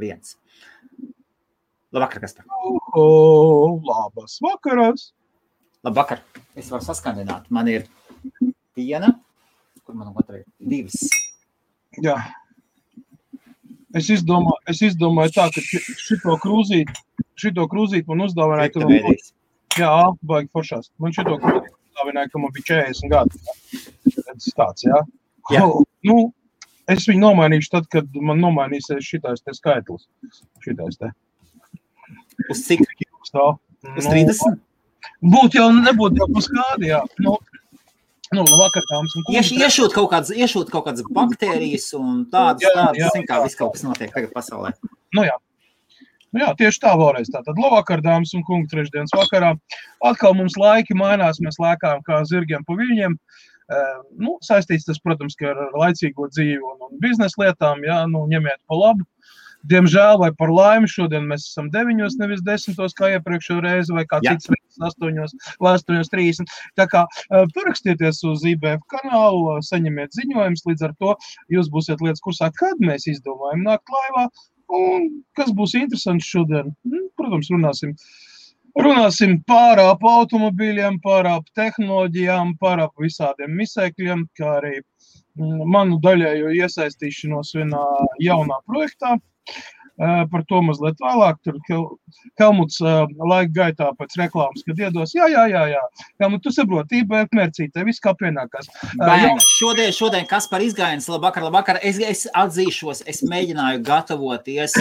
1. Labvakar, kas tā? Labas vakaras. Labvakar. Es varu saskandināt. Man ir viena, kur man otra ir 2. Jā. Es izdomāju tā, ka šito krūzīt man uzdāvināja, jā, baigi foršās. Man šito krūzīt uzdāvināja, ka man bija 40 gadi. Tāds, jā. Jā. Nu, es viņu nomainīšu tad, kad man nomainīsies šitais te skaitlis. Šitais te. Uz cik? Uz 30? Nebūtu jau uz kādi, jā. Nu, labvakar, dāmas un kungi. Iešūt kaut kādas baktērijas un tādas, zin kā, viss kaut kas notiek tagad pasaulē. Nu jā, tieši tā vēlreiz. Tātad labvakar, dāmas un kungi, trešdienas vakarā. Atkal mums laiki mainās, mēs lēkājam kā zirgiem pa viļņiem. Saistīts tas, protams, ka ar laicīgo dzīvi un biznesa lietām, jā, ņemiet pa labu. Diemžēl vai par laimi šodien mēs esam 9, nevis 10, kā iepriekšējo reizi, vai kā cits reizes 8:30. Tā kā parakstieties uz IBF kanālu, saņemiet ziņojumus, līdz ar to jūs būsiet lietas kursā, kad mēs izdomājam nākt laivā, un kas būs interesants šodien. Protams, runāsim pārāp automobīļiem, pārāp tehnoloģijām, pārāp visādiem misēkļiem, kā arī manu daļējo iesaistīšanos vienā jaunā projektā. Par to mazliet vēlāk, tur Helmuts laika gaitā pēc reklāmas, kad iedos, jā. Helmut, tu saproti, IBF mērcītē, viss kā pienākās. Šodien Kaspar izgājiens, labvakar, es atzīšos, es mēģināju gatavoties,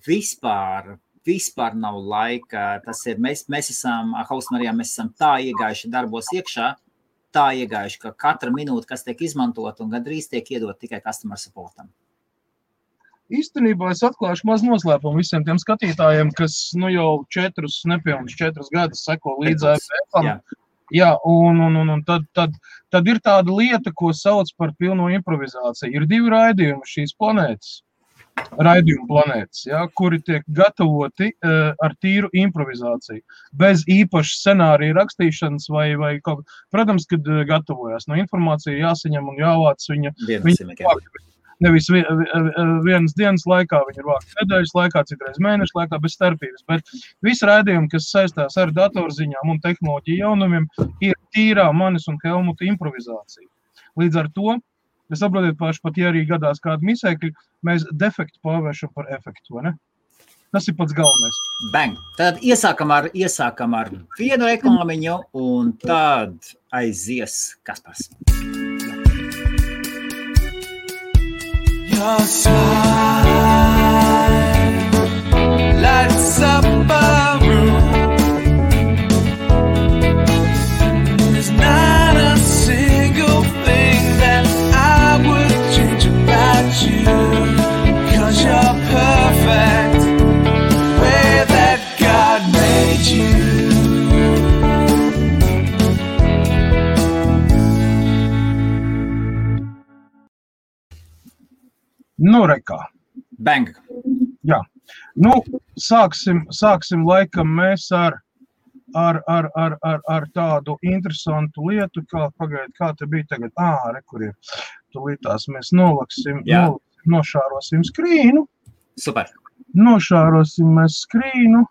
vispār nav laika, tas ir, mēs esam, Hausmarijā, mēs esam tā iegājuši darbos iekšā, ka katra minūte, kas tiek izmantot un gandrīz tiek iedot tikai customer supportam. Īstenībā es atklāšu maz noslēpumu visiem tiem skatītājiem, kas jau 4 gadus seko līdz IBF-am. Jā, un tad ir tāda lieta, ko sauc par pilno improvizāciju. Ir 2 raidījumi šīs raidījumu planētas, jā, kuri tiek gatavoti ar tīru improvizāciju. Bez īpaša scenārija rakstīšanas vai kaut kā. Protams, kad gatavojās. Informācija jāsaņem un jāvāc viņa nevis vienas dienas laikā, viņa ir vākta nedēļas laikā, citreiz mēnešu laikā, bez starpības. Bet visi raidījumi, kas saistās ar datorziņām un tehnoloģiju jaunumiem, ir tīrā manis un Helmuta improvizācija. Līdz ar to, es saprotiet paši, pat ja arī gadās kādu misēkļu, mēs defektu pārvēršam par efektu, vai ne? Tas ir pats galvenais. Bang! Tad iesākam ar vienu reklāmiņu un tad aizies Kaspars. Your smile lights up a room. There's not a single thing that I would change about you, 'cause you're perfect the way that God made you. Rekā. Bang. Jā. Sāksim laikam mēs ar tādu interesantu lietu, kā te bija tagad. Kur ir. Tūlītās mēs nošārosim skrīnu. Super. Nošārosim mēs skrīnu.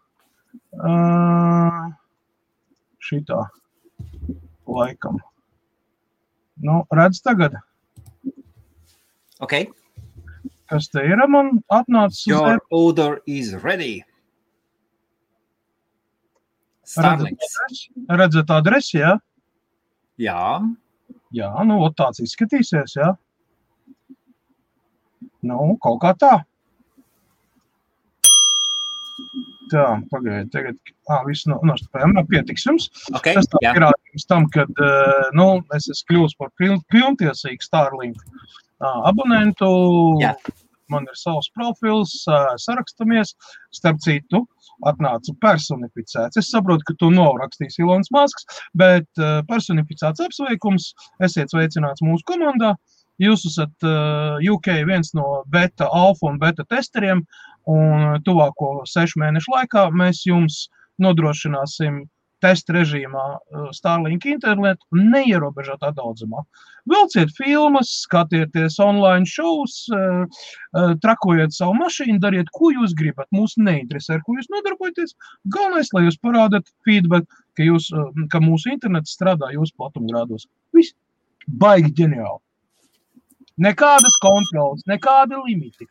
Šitā laikam. Redz tagad. Ok. Kas te ir, man atnācis? Your order is ready. Starlinks. Redzat adresi, jā? Jā. Jā, tāds izskatīsies, jā? Kaut kā tā. Tā, pagaidi, tagad, viss nostapējam, pietiks jums. Okay, tas tā pierādījums tam, kad, es esmu kļūst par pilntiesīgu Starlink abonentu, man ir savs profils, sarakstamies, starp citu, atnāca personificēts. Es saprotu, ka tu nav rakstījis Ilons Masks, bet personificēts apsveikums, esiet sveicināts mūsu komandā. Jūs esat UK viens no beta, alfa un beta testeriem, un tuvāko 6 mēnešu laikā mēs jums nodrošināsim testa režīmā Starlink internetu neierobežotā daudzumā. Vilciet filmas, skatieties online shows, trakojiet savu mašīnu, dariet, ko jūs gribat. Mūs neinteresē, ar ko jūs nodarbojaties. Galvenais, lai jūs parādat feedback, ka mūsu internets strādā jūsu platumgrādos. Viss baigi ģeniāli. Nekādas kontrolas, nekādi limiti.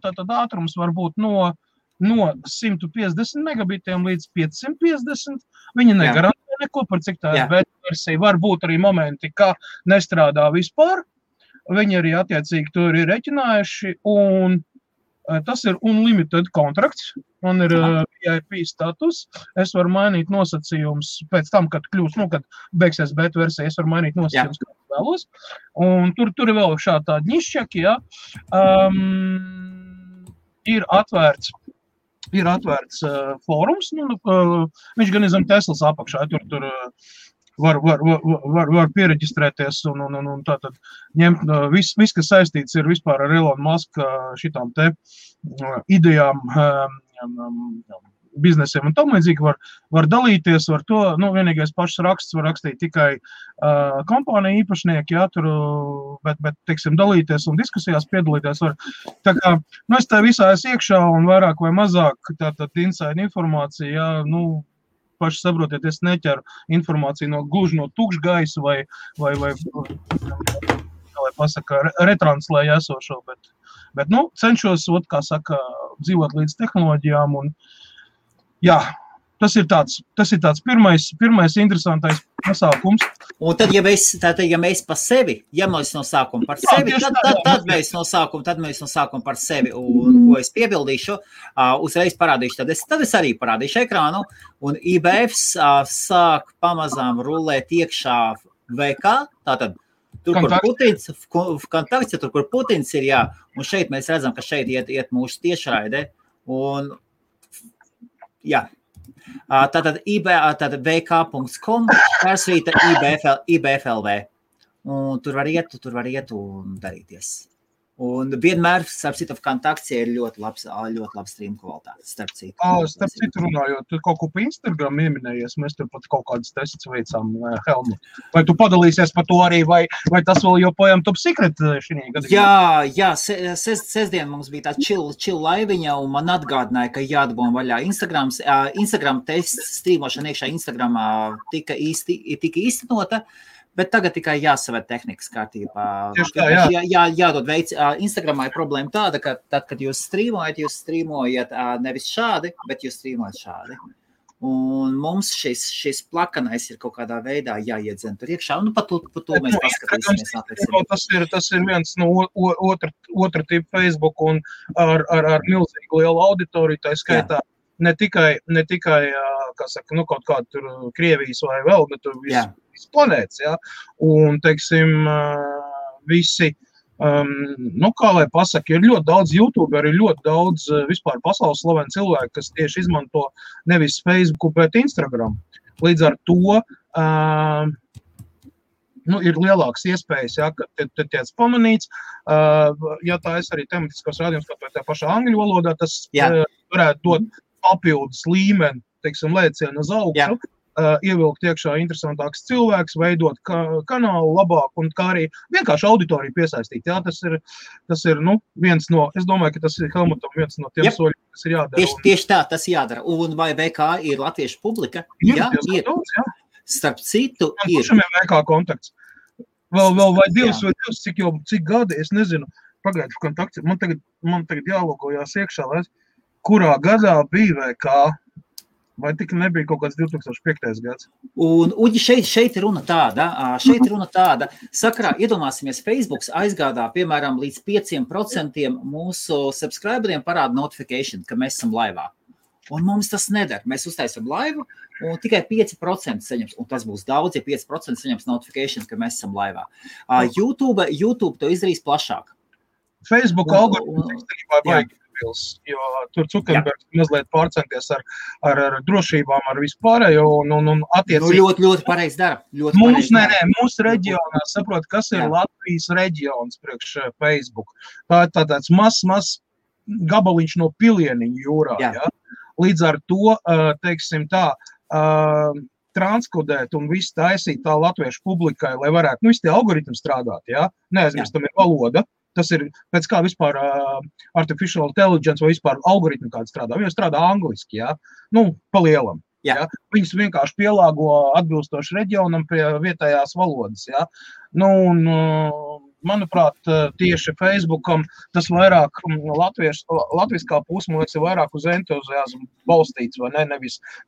Tātad ātrums var būt no 150 megabitiem līdz 550. Viņi negarantē neko par cik tā ir beta versija. Var būt arī momenti, ka nestrādā vispār. Viņi arī attiecīgi to ir reķinājuši, un tas ir unlimited kontrakts. Man ir VIP status. Es varu mainīt nosacījumus pēc tam, kad kad beigsies beta versija, es varu mainīt nosacījumus, kā vēlos. Un tur ir vēl šādi tādi nišķaki, Ir atvērts fórums, viņš gan zem Teslas apakšā, tur var piereģistrēties un tātad ņemt viss, kas saistīts ir vispār ar Elon Musk šitām te idejām, biznesiem un tam līdzīgi var dalīties, var to, vienīgais pašs raksts var rakstīt tikai kompānija īpašnieki, bet, teiksim, dalīties un diskusijās piedalīties var. Tā kā, es tā visā esmu iekšā un vairāk vai mazāk tātad inside informācija, paši saprotiet, es neķeru informāciju gluži no tukša gaisa vai pasaka, retranslēju esošo, bet cenšos, kā saka, dzīvot līdz tehnoloģijām un tas ir tāds pirmais interesantais pasākums. Un tad, ja mēs pa sevi, ja mēs no sākuma par sevi, tad mēs no sākuma par sevi, un ko es piebildīšu, uzreiz parādīšu, tad es arī parādīšu ekrānu, un IBFs sāk pamazām rulēt iekšā VK, tātad tur, kur Putins, kontakts, tur, kur Putins ir, un šeit mēs redzam, ka šeit iet mūsu tiešraide, un tātad vk.com persvīta IBFLV. Un tur var iet un darīties. Un vienmēr, starp citu, kontakts ir ļoti labs stream kvalitāte, starp citu. Starp citu runājot, tu kaut ko pa Instagram ieminējies, mēs tur pat kaut kādas tests veicām, Helmut. Vai tu padalīsies par to arī, vai tas vēl joprojām top secret šī gadījumā? Jā, sestdien mums bija tā chill laiviņa, un man atgādināja, ka jādabūna vaļā Instagram tests strīmošana iekšā Instagramā tika īstenota. Bet tagad tikai jāsavērt tehnikas kārtībā. Tieši tā, jādod veids. Instagramā ir problēma tāda, ka tad, kad jūs strīmojat nevis šādi, bet jūs strīmojat šādi. Un mums šis plakanais ir kaut kādā veidā jāiedzen tur iekšā. Un par to mēs paskatīsimies. Tas ir viens no otra tipa Facebook un ar milzīgu lielu auditoriju, tā skaitā. Ne tikai kā saka, kaut kāda tur Krievijas vai vēl, bet tur viss planētas, Un, teiksim, visi, kā lai pasaka, ir ļoti daudz YouTuberi, ir ļoti daudz vispār pasaules slaveni cilvēki, kas tieši izmanto nevis Facebooku, bet Instagram. Līdz ar to ir lielākas iespējas, ka tiec pamanīts. Ja tā es arī tematiskos rādījums, kā tā pašā angļu valodā, tas varētu dot papildus līmeni, teiksim, lēcienu uz augšu, ievilkt iekšā interesantāks cilvēks, veidot kanālu labāk un kā arī vienkārši auditoriju piesaistīt. Tas ir viens no, es domāju, ka tas ir Helmutam viens no tiem soļiem, kas ir jādara. Tieši tā, tas jādara. Un vai VK ir latviešu publika? Jā, ir. Starp citu ir. Kuršam ir VK kontakts? Vēl vai divs, cik gadi, es nezinu, pagaidu kontakts. Man tagad jālogojās iekšā, kurā gadā bija VK, vai tik nebija kaut kāds 2005. Gads? Un šeit ir runa tāda, sakarā, iedomāsimies, Facebooks aizgādā, piemēram, līdz 5% mūsu subscriberiem parāda notification, ka mēs esam laivā. Un mums tas nedara. Mēs uztaisam laivu, un tikai 5% saņems, un tas būs daudz, ja 5% saņems notification, ka mēs esam laivā. YouTube to izdarīs plašāk. Facebook algoritms baigi. Jo tur Zuckerbergs mazliet pārcenties ar drošībām, ar vispārējo un attiecīgi. Ļoti pareizi dara. Mūsu reģionā saprot, kas ir Latvijas reģions priekš Facebook. Tā tāds mazs gabaliņš no Pilieniņu jūrā, Līdz ar to, teiksim tā, transkodēt un visu taisīt tā latviešu publikai, lai varētu, visi tie algoritmi strādāt, jā? Neaizmirstam ir valoda. Tas ir pēc kā vispār artificial intelligence vai vispār algoritmi kādi strādā. Viņi strādā angliski, jā? Pa lielam. Jā. Viņus vienkārši pielāgo atbilstoši reģionam pie vietējās valodas, jā? Manuprāt, tieši Facebookam tas vairāk latviskā puse, man liekas, ir vairāk uz entuziasmu balstīts, vai ne?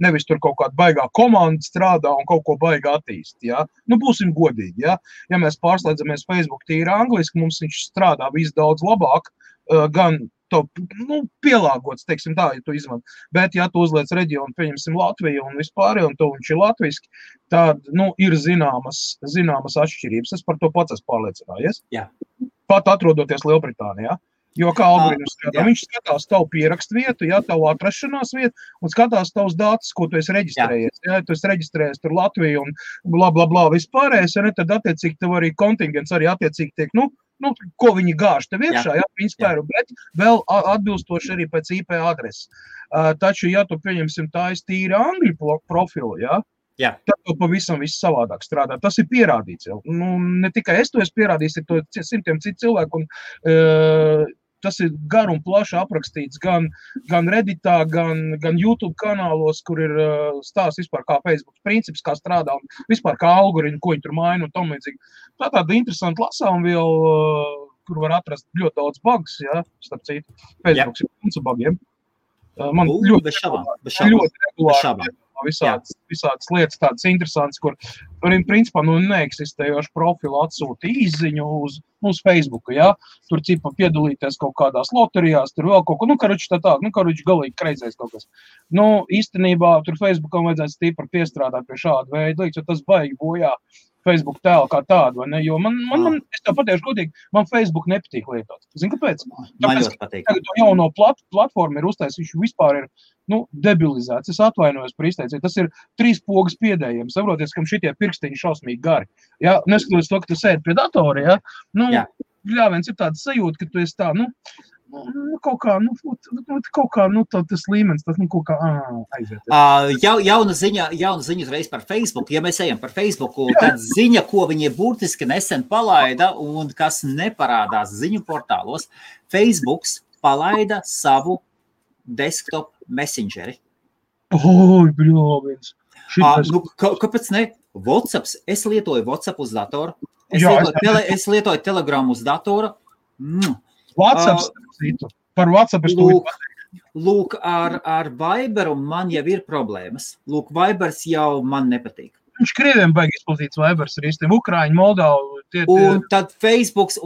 Nevis tur kaut kāda baigā komanda strādā un kaut ko baigā attīst, jā? Būsim godīgi, jā? Ja mēs pārslēdzamies Facebook tīri angliski, mums viņš strādā viss daudz labāk, gan pielāgots, teiksim tā, ja tu izmanto. Bet, ja tu uzliec reģionu, pieņemsim Latviju un vispār, un tu viņš ir latviski, tad, ir zināmas atšķirības. Es par to pats esmu pārliecinājies. Jā. Pat atrodoties Lielbritānijā. Jo kā algoritms skatā, viņš skatās tavu pierakstu vietu, jā, tavu atrašanās vietu, un skatās tavus datus, ko tu esi reģistrējies. Jā, tu esi reģistrējies tur Latviju un bla, vispārējais, ja ne, tad attiecīgi tev arī kontingents arī attiecīgi tiek, ko viņi gāž tev iekšā, jā, principā, bet vēl atbilstoši arī pēc IP adreses. Taču, ja tu pieņemsim tā tīri angļu profilu, jā, tad to pavisam viss savādāk strādā. Tas ir pierādīts jau. Ne tikai es to esmu pierādījis, ir to simtiem citu cilvēku, un tas ir gar un plaši aprakstīts gan Redditā, gan YouTube kanālos, kur ir stāsts vispār kā Facebook princips, kā strādā un vispār kā algoritmi, ko viņi tur maina un tam līdzīgi. Tā tāda interesanta lasām vēl, kur var atrast ļoti daudz bugs, jā, starp citu. Facebook ir punca bugiem. Man ļoti regulāri visādas lietas tādas interesantas, kur principā neeksistējošu profilu atsūta īziņu uz Facebooku, jā. Tur cipa piedalīties kaut kādās loterijās, tur vēl kaut ko, karuči galīgi kreizēs kaut kas. Īstenībā tur Facebookam vajadzētu stīpri piestrādāt pie šāda veida lietas, jo tas baigi bojā Facebook tēlu kā tādu, vai ne? Jo es tev patiešu godīgi, man Facebook nepatīk lietot. Zini, kāpēc? Tāpēc, ka tagad to jauno platformu ir uztaisīts, viņš vispār ir, debilizēts. Es atvainojos par izteicienu. Tas ir 3 pogas piedējiem. Saproties, kam šitie pirkstiņi šausmīgi gari. Ja? Neskatoties to, ka tu sēdi pie datora, ja? Viens ir tāds sajūta, ka tu esi tā, kaut kā, tas līmenis, tas kaut kā aiziet. Jauna ziņa uzreiz par Facebook. Ja mēs ejam par Facebooku, tad ziņa, ko viņi burtiski nesen palaida un kas neparādās ziņu portālos, Facebooks palaida savu desktop messengeri. Bļāviens. Kāpēc ne? WhatsApps. Es lietoju WhatsApp uz datoru. Es lietoju Telegram uz datoru. WhatsApp, par WhatsApp es to pateicu. Lūk, ar Viberu man jau ir problēmas. Lūk, Vibers jau man nepatīk. Viņš Krieviem baigi izplatīts Vibers ar īstiem Ukraiņu, Moldavu. Un tad Facebooks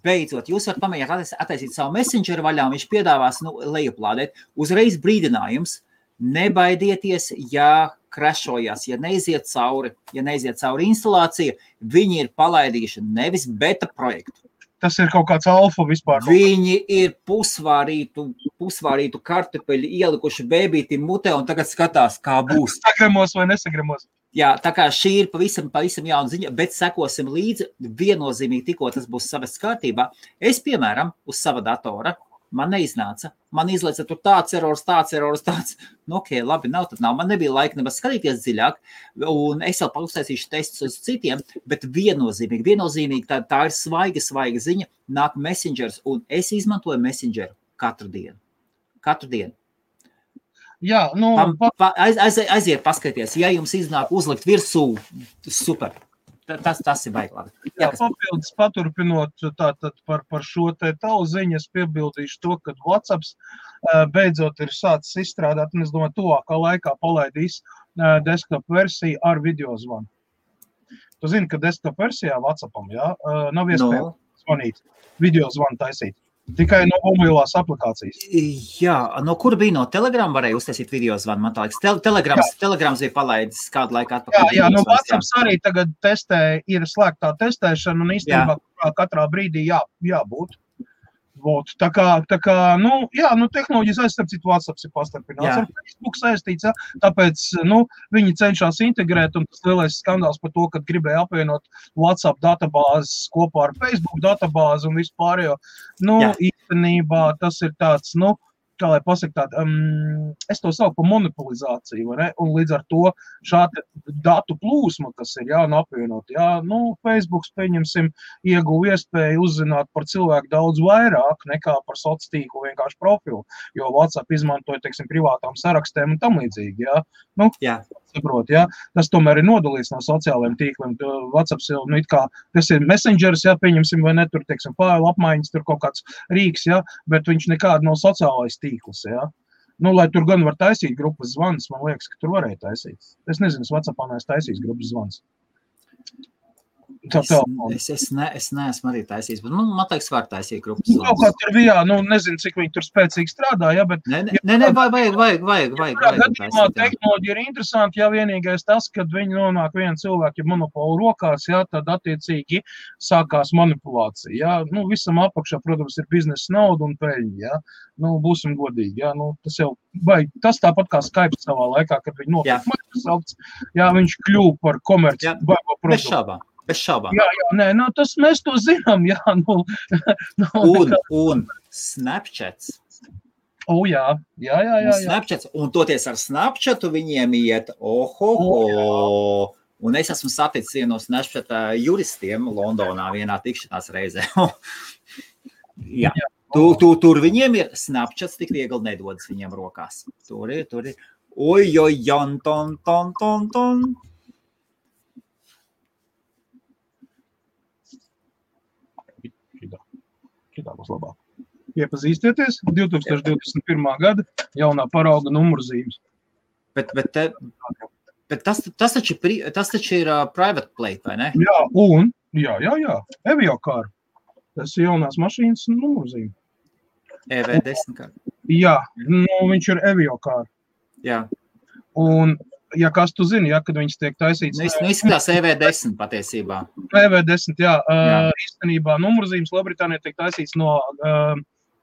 beidzot. Jūs varat pamēģināt attaisīt savu messengeru vaļā, viņš piedāvās lejuplādēt. Uzreiz brīdinājums. Nebaidieties, ja crashojās, ja neiziet cauri instalācija, viņi ir palaidījuši nevis beta projektu. Tas ir kaut kāds alfa vispār. Viņi ir pusvārītu kartupeļu ielikuši bēbītim mutē un tagad skatās, kā būs. Sagremos vai nesagremos. Jā, tā kā šī ir pavisam jauna ziņa, bet sekosim līdzi viennozīmīgi tikko tas būs savests kārtībā. Es, piemēram, uz sava datora, man neiznāca. Man izlaica tur tāds erors. Labi, nav, tad nav. Man nebija laika nemaz skatīties dziļāk, un es vēl uztaisīšu testus uz citiem, bet viennozīmīgi tā ir svaiga ziņa, nāk messengers, un es izmantoju messengeru katru dienu. Jā, aiziet paskaties, ja jums iznāk uzlikt virsū, super. Tas ir baigi labi. Papildus paturpinot tātad par šo te tavu ziņu, es piebildīšu to, ka WhatsApps beidzot ir sācis izstrādāt, un es domāju, tuvākā laikā palaidīs desktop versiju ar videozvanu. Tu zini, ka desktop versijā WhatsAppam, nav iespējams zvanīt, videozvanu taisīt. Tikai no mobilās aplikācijas. Jā, no kur bija no Telegram varēja uztaisīt videozvanu, man tā liekas. Telegrams bija palaidis kādu laiku atpakaļ. Jā, no WhatsApps arī tagad ir slēgtā testēšana, un īstenībā katrā brīdī jābūt. Tā kā, tehnoloģijas aizstarpcīt WhatsApps ir pastarpināts. Ar Facebook saistīts, tāpēc, viņi cenšas integrēt, un tas lielais skandāls par to, ka gribēja apvienot WhatsApp databāzes kopā ar Facebook databāzi un vispārējo. Īstenībā tas ir tāds, kā lai pasaka tādu, es to saucu par monopolizāciju, vai ne? Un līdz ar to šāda datu plūsma, kas ir, jā, un apvienot, jā, nu, Facebooks, pieņemsim, ieguva iespēju uzzināt par cilvēku daudz vairāk nekā par sociālo vienkārši profilu, jo WhatsApp izmantoja, teiksim, privātām sarakstēm un tam līdzīgi, jā. Nu, saprot, jā. Tas tomēr ir nodalīts no sociālajiem tīkliem. WhatsApp, nu, it kā, tas ir messengers, jā, pieņemsim, vai ne, tur, teiksim, failu apmaiņas, tur kaut kāds rīks, jā, bet viņš nekāda nav sociālais tīkls, jā. Nu, lai tur gan var taisīt grupas zvans, man liekas, ka tur varēja taisīt. Es nezinu, es WhatsAppā neesmu taisījis grupas zvans. Es neesmu arī taisījis, bet man liekas, var taisīt grupas zvans. Kaut kā tur bija, nu, nezinu, cik viņi tur spēcīgi strādā, jā, bet... Vajag gadījumā tehnoloģija ir interesanti, ja vienīgais tas, kad viņi nonāk viena cilvēka monopolu rokās, jā, tad attiecīgi sākās manipulācija, jā. Nu, visam apakšā, protams, ir biznesa nauda un peļņa, jā. Nu, būsim godīgi, jā, nu, tas jau tas tāpat kā Skype savā laikā, kad viņi nopirka Microsoft, jā, viņš kļuva par komerci baigo produktu. Bez šaubām. Jā, nē, nu, tas mēs to zinām, jā, nu. Un Snapchats. Jā. Snapchats, un toties ar Snapchatu viņiem iet, un es esmu saticis vienu no Snapchat juristiem Londonā vienā tikšanās reizē. Jā. Tur viņiem ir Snapchats, tik viegli nedodas viņiem rokās. Tur ir. Ton. Šitā būs labāk. Iepazīstieties, 2021. gada jaunā parauga numurzīmes. Bet tas taču ir private plate, vai ne? Jā, Eviocar. Tas ir jaunās mašīnas numurzīme. EV10 kārt. Jā, nu, viņš ir Eviocar. Jā. Un, ja kas tu zini, ja, kad viņas tiek taisīts... Nu, izskatās EV10 patiesībā. EV10, jā. Īstenībā numurzīmes Lielbritānijā tiek taisīts no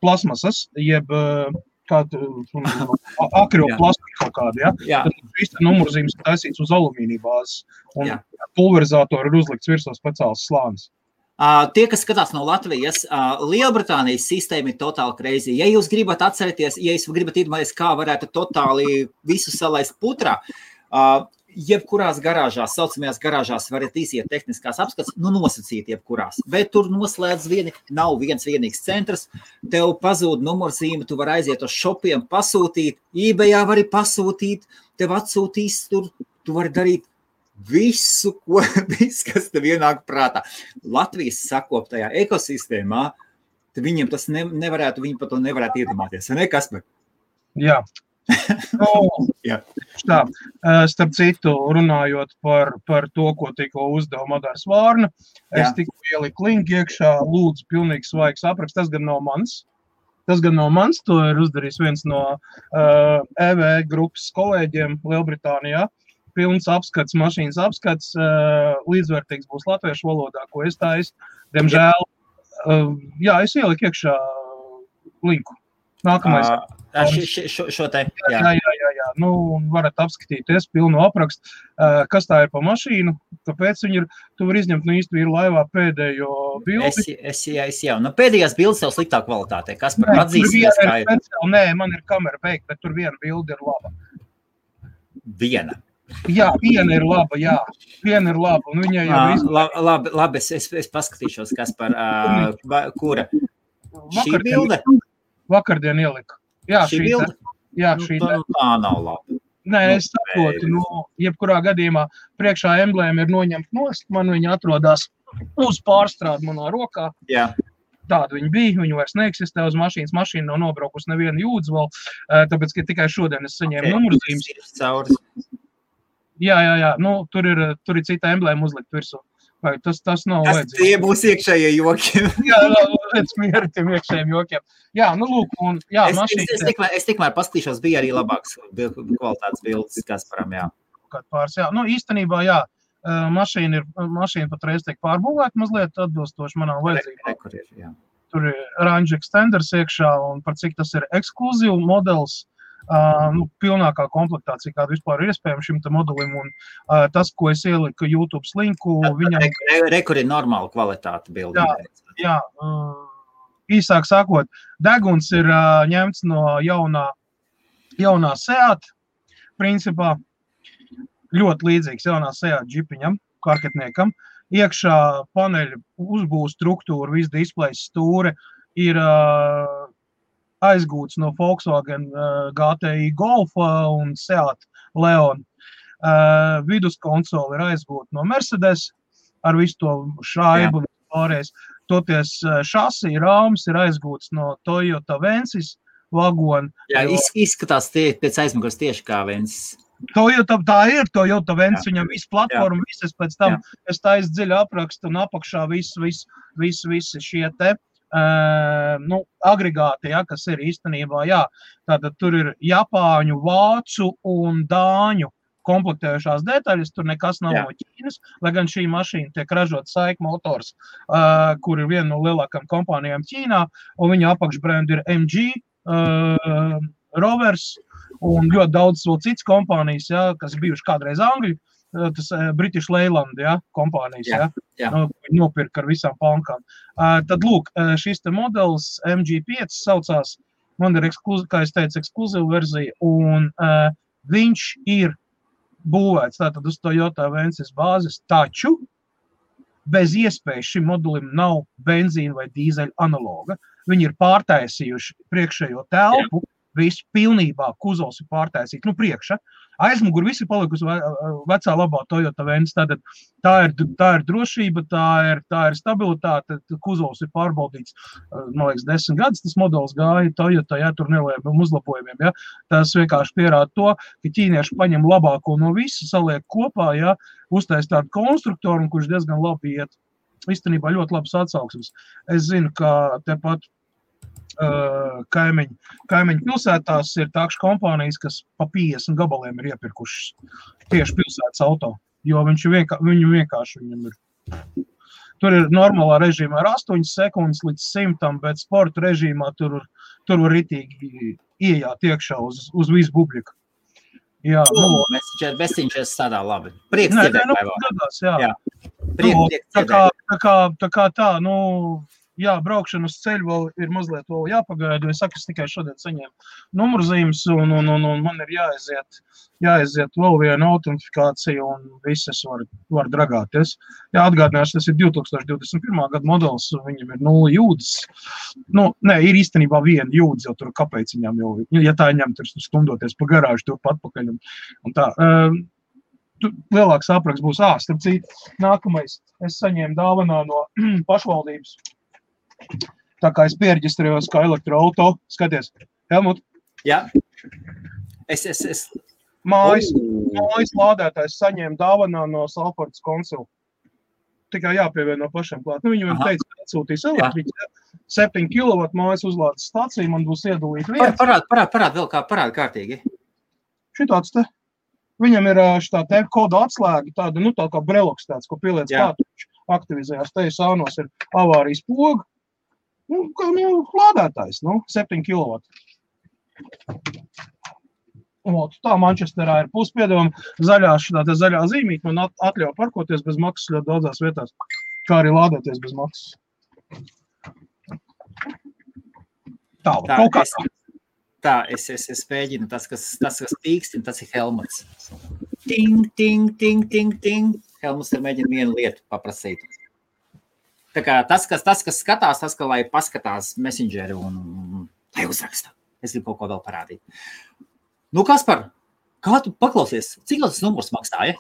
plasmasas, jeb akrioplastika kaut kāda, ja? Tad šīs numurzīmes ir taisīts uz alumīnija bāzes. Un pulverizātori ir uzlikts virsū speciāls slānis. Tie, kas skatās no Latvijas, Lielbritānijas sistēma ir totāli crazy. Ja jūs gribat atcerēties, ja jūs gribat iedomāties, kā varētu totāli visu salaist putrā, jebkurās garāžās, saucamajās garāžās varat iziet tehniskās apskats, nu nosacīt jebkurās. Bet tur noslēdz nav viens vienīgs centrs, tev pazūd numurzīme, tu vari aiziet uz shopiem, pasūtīt, eBayā vari pasūtīt, tev atsūtīs tur, tu vari darīt visu, kas tev ienāk prātā. Latvijas sakoptajā ekosistēmā, tad viņiem tas nevarētu, viņi par to nevarētu iedomāties. Ne, Kasper? Jā. Tā, starp citu, runājot par to, ko tikko uzdeva Madars Vārna, es tikko ieliku linku iekšā, lūdzu, pilnīgi svaigs apraksts, tas gan nav mans, to ir uzdarījis viens no EV grupas kolēģiem Lielbritānijā. Pilns apskats, mašīnas apskats, līdzvērtīgs būs latviešu valodā, ko es taisu. Diemžēl, es ieliku iekšā linku. Nākamais. Šo te, jā. Nu, varat apskatīties pilnu aprakstu. Kas tā ir pa mašīnu? Kāpēc viņi ir? Tu var izņemt no īsti vīru laivā pēdējo bildi. Es jau. Nu, pēdējās bildes jau sliktā kvalitātē. Kas par atzīsies, kā ir? Nē, man ir kamera beigta, bet tur viena bilde ir laba. Viena. Jā, viena ir laba, un viņai jau labi, es paskatīšos, kas par kura. Šī bilde? Vakardien ieliku. Jā, šī bilde? Jā, šī bilde. Tā nav laba. Nē, es saprotu, jebkurā gadījumā priekšā emblēma ir noņemt nost, man viņa atrodās uz pārstrādi manā rokā. Jā. Tāda viņa bija, viņa vairs neeksistē uz mašīnas, mašīna nav nobraukusi nevienu jūdzu vēl, tāpēc, ka tikai šodien es saņēmu numurzīmes. Jā, nu, tur ir cita emblēma uzlikt virsū. Vai tas nav vajadzīgs. Tie būs iekšējie joki. Jā, pēc mieri tiem iekšējiem jokiem. Jā, nu, lūk, un jā, mašīna... Es tikmēr paskatīšos, bija arī labāks kvalitātes bildes, Kasparam, jā. Pāris, jā. Nu, īstenībā, jā, mašīna patreiz tiek pārbūvēta mazliet atbilstoši manām vajadzībām. Tur ir range extenders iekšā, un par cik tas ir ekskluzīvu modelis, pilnākā komplektācija, kāda vispār ir iespējama šim te modelim, un tas, ko es ieliku YouTube linku, viņam... Rekur ir normāla kvalitāte bildi. Jā, īsāk sakot, deguns ir ņemts no jaunā Seat, principā, ļoti līdzīgs jaunā Seat džipiņam, karketniekam. Iekšā paneļa uzbūves struktūra, viss displejs stūre ir aizgūts no Volkswagen GTI Golfa un Seat Leon. Viduskonsoli ir aizgūta no Mercedes ar visu to šaibu pārējais. Toties šasī rāms ir aizgūts no Toyota Vensis vagona. Jā, izskatās pēc aizmugures tieši kā Vensis. Tā ir Toyota Vensis, viņam visu platformu, visas pēc tam, es tā dziļi aprakstu un apakšā visi šie te agregāti, kas ir īstenībā, tātad tur ir japāņu, vācu un dāņu komplektējušās detaļas, tur nekas nav no Ķīnas, lai gan šī mašīna tiek ražot SAIC Motors, kur ir viena no lielākām kompānijām Ķīnā, un viņa apakšbrendi ir MG, Rovers un ļoti daudz vēl cits kompānijas, kas bijuši kādreiz Angļu, tas British Leyland, kompānijas, nopirka ar visām pankām. Tad, lūk, šis te modelis MG5 saucās, man ir, kā es teicu, ekskluzīva verzija, un viņš ir būvēts tātad uz Toyota Vensis bāzes, taču bez iespējas šim modelim nav benzīna vai dīzeļa analoga. Viņi ir pārtaisījuši priekšējo telpu, visu pilnībā kuzovs ir pārtaisīts, priekša. Aizmugur visi palikusi vecā labā Toyota Vensis, tātad tā ir drošība, tā ir stabilitāte, kuzovs ir pārbaudīts, man liekas, 10 gadus tas modelis gāja Toyota, tur nelieliem uzlabojumiem, Tas vienkārši pierāda to, ka ķīnieši paņem labāko no visu, saliek kopā, uztais tādu konstruktoru, kurš diezgan labi iet. Īstenībā ļoti labs atsauksmes. Es zinu, ka tepat kaimiņu pilsētās ir tākšu kompānijas, kas pa 50 gabaliem ir iepirkušas tieši pilsētas auto, jo viņu vienkārši viņam ir. Tur ir normālā režīmā ar 8 sekundes līdz 100, bet sporta režīmā tur var ritīgi iejāt iekšā uz visu publiku. Jā, Messenger strādā labi. Prieks dzirdēt, vai vēl? Tā kā tā, braukšana uz ceļu vēl ir mazliet vēl jāpagaida, es tikai šodien saņēmu numurzīmes un man ir jāaiziet vēl viena autentifikācija un visas var dragāties. Atgādināšu, tas ir 2021. Gada modelis, viņam ir 0 jūdzes. Ir īstenībā viena jūdze, jo tur kāpēc viņam jau, ja tā ņem, tur stumdoties pa garāžu, tur patpakaļ un tā. Lielāks apraksts būs, starp citu, nākamais, es saņēmu dāvanā no pašvaldības. Tā kā es pierģistrējos kā elektroauto, skaties, Helmut? Jā. Mājas lādētājs saņēma dāvanā no Salfordas konsula. Tikai jāpievieno pašiem klāt. Viņam teica, ka atsūtīs elektriķi, 7 kW mājas uzlādes stācija, man būs iedalīt vieta. Parād kārtīgi. Šitāds te. Viņam ir šitā te koda atslēga, tāda, tā kā breloks tāds, ko pieliec klāt, viņš aktivizējās. Te sānos ir avārijas poga. Lādētājs, 7 kW. Tā Manchesterā ir puspiedevama zaļā zīmīte, man atļauj parkoties bez maksas ļoti daudzās vietās, kā arī lādēties bez maksas. Es mēģinu, tas, kas pīkstina, tas ir Helmuts. Ting, ting, ting, ting, ting. Helmuts ir mēģina vienu lietu paprasīt. Tā kā tas, kas skatās, tas, ka lai paskatās Messengeri un lai uzraksta. Es gribu kaut ko vēl parādīt. Kaspar, kā tu paklausies? Cik tas numurs maksāja?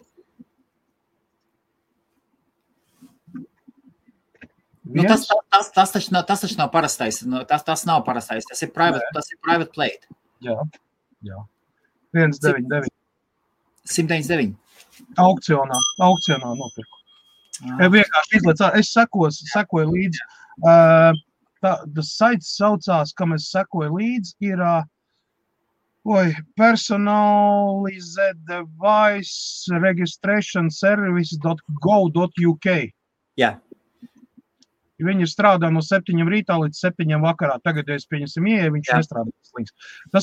Tas taču nav parastais. Tas nav parastais. Tas ir private plate. Jā. 199. 199. Aukcionā nopirku. Vienkārši izlaic, es sekoju līdzi. Tas saits saucās, kam es sekoju līdzi, ir Personalized Device Registration Service.go.uk. Jā. Viņi ir strādā no 7 rītā līdz 7 vakarā. Tagad, ja es pieņemsim ieeja, viņš nestrādā. Tā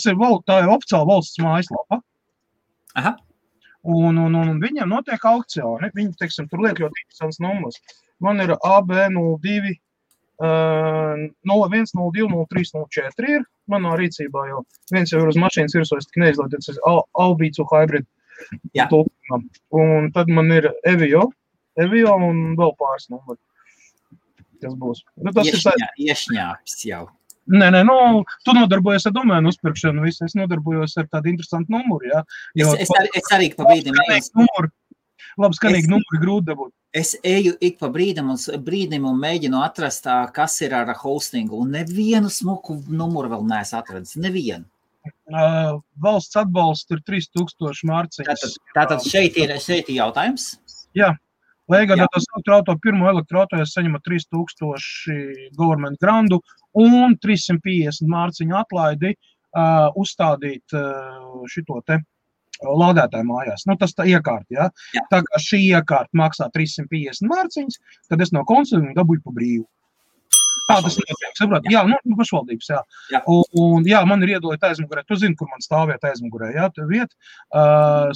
ir oficiāla valsts mājaslapa. Aha. Un viņiem notiek aukcioni. Viņi, tur liek ļoti interesants numurs. Man ir AB02 01, 02, 03, 04 ir manā rīcībā jau. Viens jau ir uz mašīnas virsūs, tik neizlaidots Albīcu hybrid. Un tad man ir Evio un vēl pāris numuri. Tas būs. Nu, tas Iešņāps jau. Nē, tu nodarbojies ar domēnu uzpirkšanu, visu. Es nodarbojos ar tādu interesantu numuru, jā. Es arī pa brīdim. Labi, skanīgi numuri grūti dabūt. Es eju ik pa brīdim un mēģinu atrast, kas ir ar hostingu, un nevienu smuku numuru vēl neesmu atradis. Nevienu. Valsts atbalsts ir 3000 mārciņas. Tātad šeit ir jautājums? Jā. Lai iegādātos pirmo elektroauto, es saņemu 3000 government grandu un 350 mārciņu atlaidi uzstādīt šito te lādētāju mājās. Nu, tas tā iekārta, jā. Tā kā šī iekārta maksā 350 mārciņas, tad es no konsultiem dabūju pa brīvu. Tā tas notiek, saprāt? Jā, pašvaldības, jā. Un jā, man ir iedalīta aizmugurē. Tu zini, kur man stāviet aizmugurē, jā, tu viet.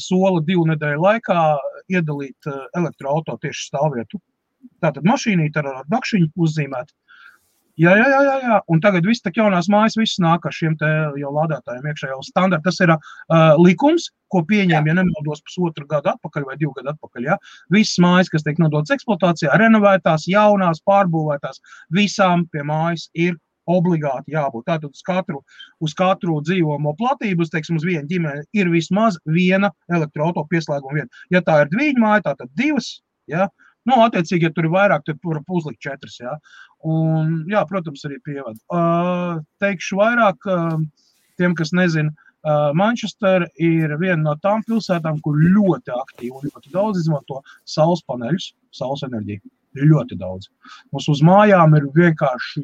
Sola 2 nedēļu laikā iedalīt elektroauto tieši stāvvietu. Tātad mašīnīt ar dakšiņu uzzīmēt. Jā. Un tagad viss tak jaunās mājas, viss nāk ar šiem te jau lādētājiem iekšā jau standarti. Tas ir likums, ko pieņēma, ja nemaldos 1,5 gadu atpakaļ vai 2 gadu atpakaļ. Ja? Visas mājas, kas tiek nodotas eksploatācijā, renovētās, jaunās, pārbūvētās, visām pie mājas ir obligāti jābūt. Tātad uz katru dzīvomo platību, teiksim, uz vienu ģimeni ir vismaz viena elektroauto pieslēguma vieta. Ja tā ir dviņu māja, tātad 2, ja? Nu, attiecīgi, ja tur ir vairāk, tad var uzlikt 4, jā. Un, jā, protams, arī pievada. Teikšu vairāk tiem, kas nezina, Manchester ir viena no tām pilsētām, kur ļoti aktīvi un ļoti daudz izmanto saules paneļus, saules enerģiju. Ļoti daudz. Mums uz mājām ir vienkārši,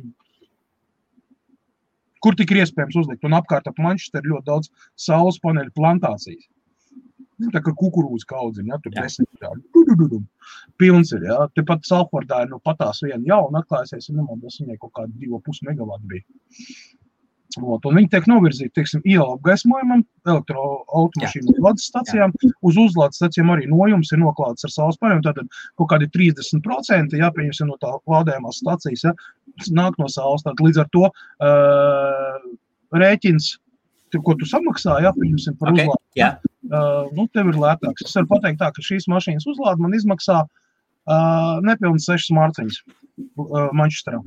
kur tik ir iespējams uzlikt. Un apkārt ap Manchester ir ļoti daudz saules paneļu plantācijas. Tā kā kukurūza kaudziņa, ja, tur 10 tādi. Pilns ir, ja. Tepat Salfordā ir patās viena jauna atklājusies, un nemaldos viņai kaut kādi 2,5 megavati bija. Un viņi tiek novirzīti, teiksim, iela apgaismojumam, elektroautomašīnu uzlādes stacijām. Uz uzlādes stacijām arī nojums ir noklāts ar saules paneļiem, tātad kaut kādi 30%, ja, pieņemsim no tā lādējumās stacijas, ja, nāk no saules. Tātad līdz ar to rēķins, ko tu samaksā, ja, pieņemsim par uzlādi. Yeah. Tev ir lētāks. Es varu pateikt tā, ka šīs mašīnas uzlāde man izmaksā nepilnas 6 mārciņas Manchesterā.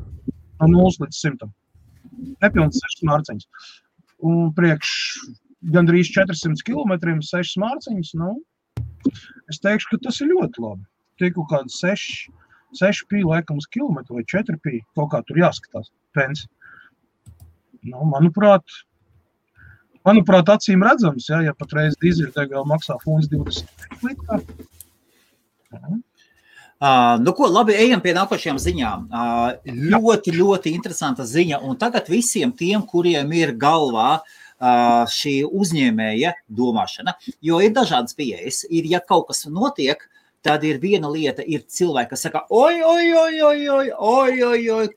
No 0 līdz 100. Nepilnas 6 mārciņas. Un priekš gandrīz 400 kilometriem 6 mārciņas, es teikšu, ka tas ir ļoti labi. Tie kaut kādi 6 pī laikam uz kilometru vai 4 pī, kaut kā tur jāskatās, pensi. Manuprāt, acīm redzams, ja patreiz dīzeļdegviela maksā funds 20 litrā. Labi, ejam pie nākošajām ziņām. Ļoti interesanta ziņa, un tagad visiem tiem, kuriem ir galvā šī uzņēmēja domāšana, jo ir dažādas pieejas. Ja kaut kas notiek, tad ir viena lieta, ir cilvēki, kas saka, oi,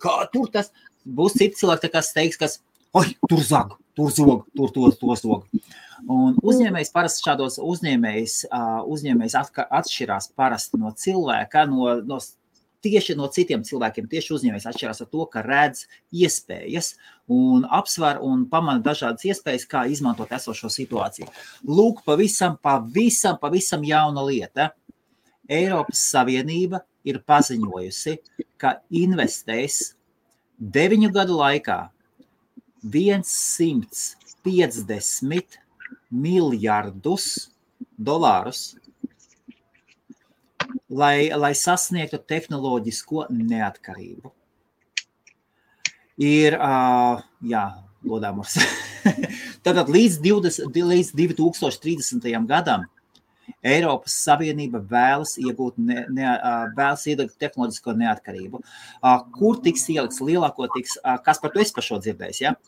kā tur tas? Būs citi cilvēki, kas teiks, kas, oi, tur zog. Tur zog. Un uzņēmējs parasti šādos uzņēmējs atšķirās parasti no cilvēka, tieši no citiem cilvēkiem, tieši uzņēmējs atšķirās ar to, ka redz iespējas un apsver un pamana dažādas iespējas, kā izmantot esošo situāciju. Lūk, pavisam jauna lieta. Eiropas Savienība ir paziņojusi, ka investēs 9 gadu laikā $150 miljardus, lai sasniegtu tehnoloģisko neatkarību. Ir, lodāmurs. Tātad līdz 2030. gadam Eiropas Savienība vēlas iegūt tehnoloģisko neatkarību. Kur tiks ielikts lielākoties, kas par to esi par šo dzirdējis, ja?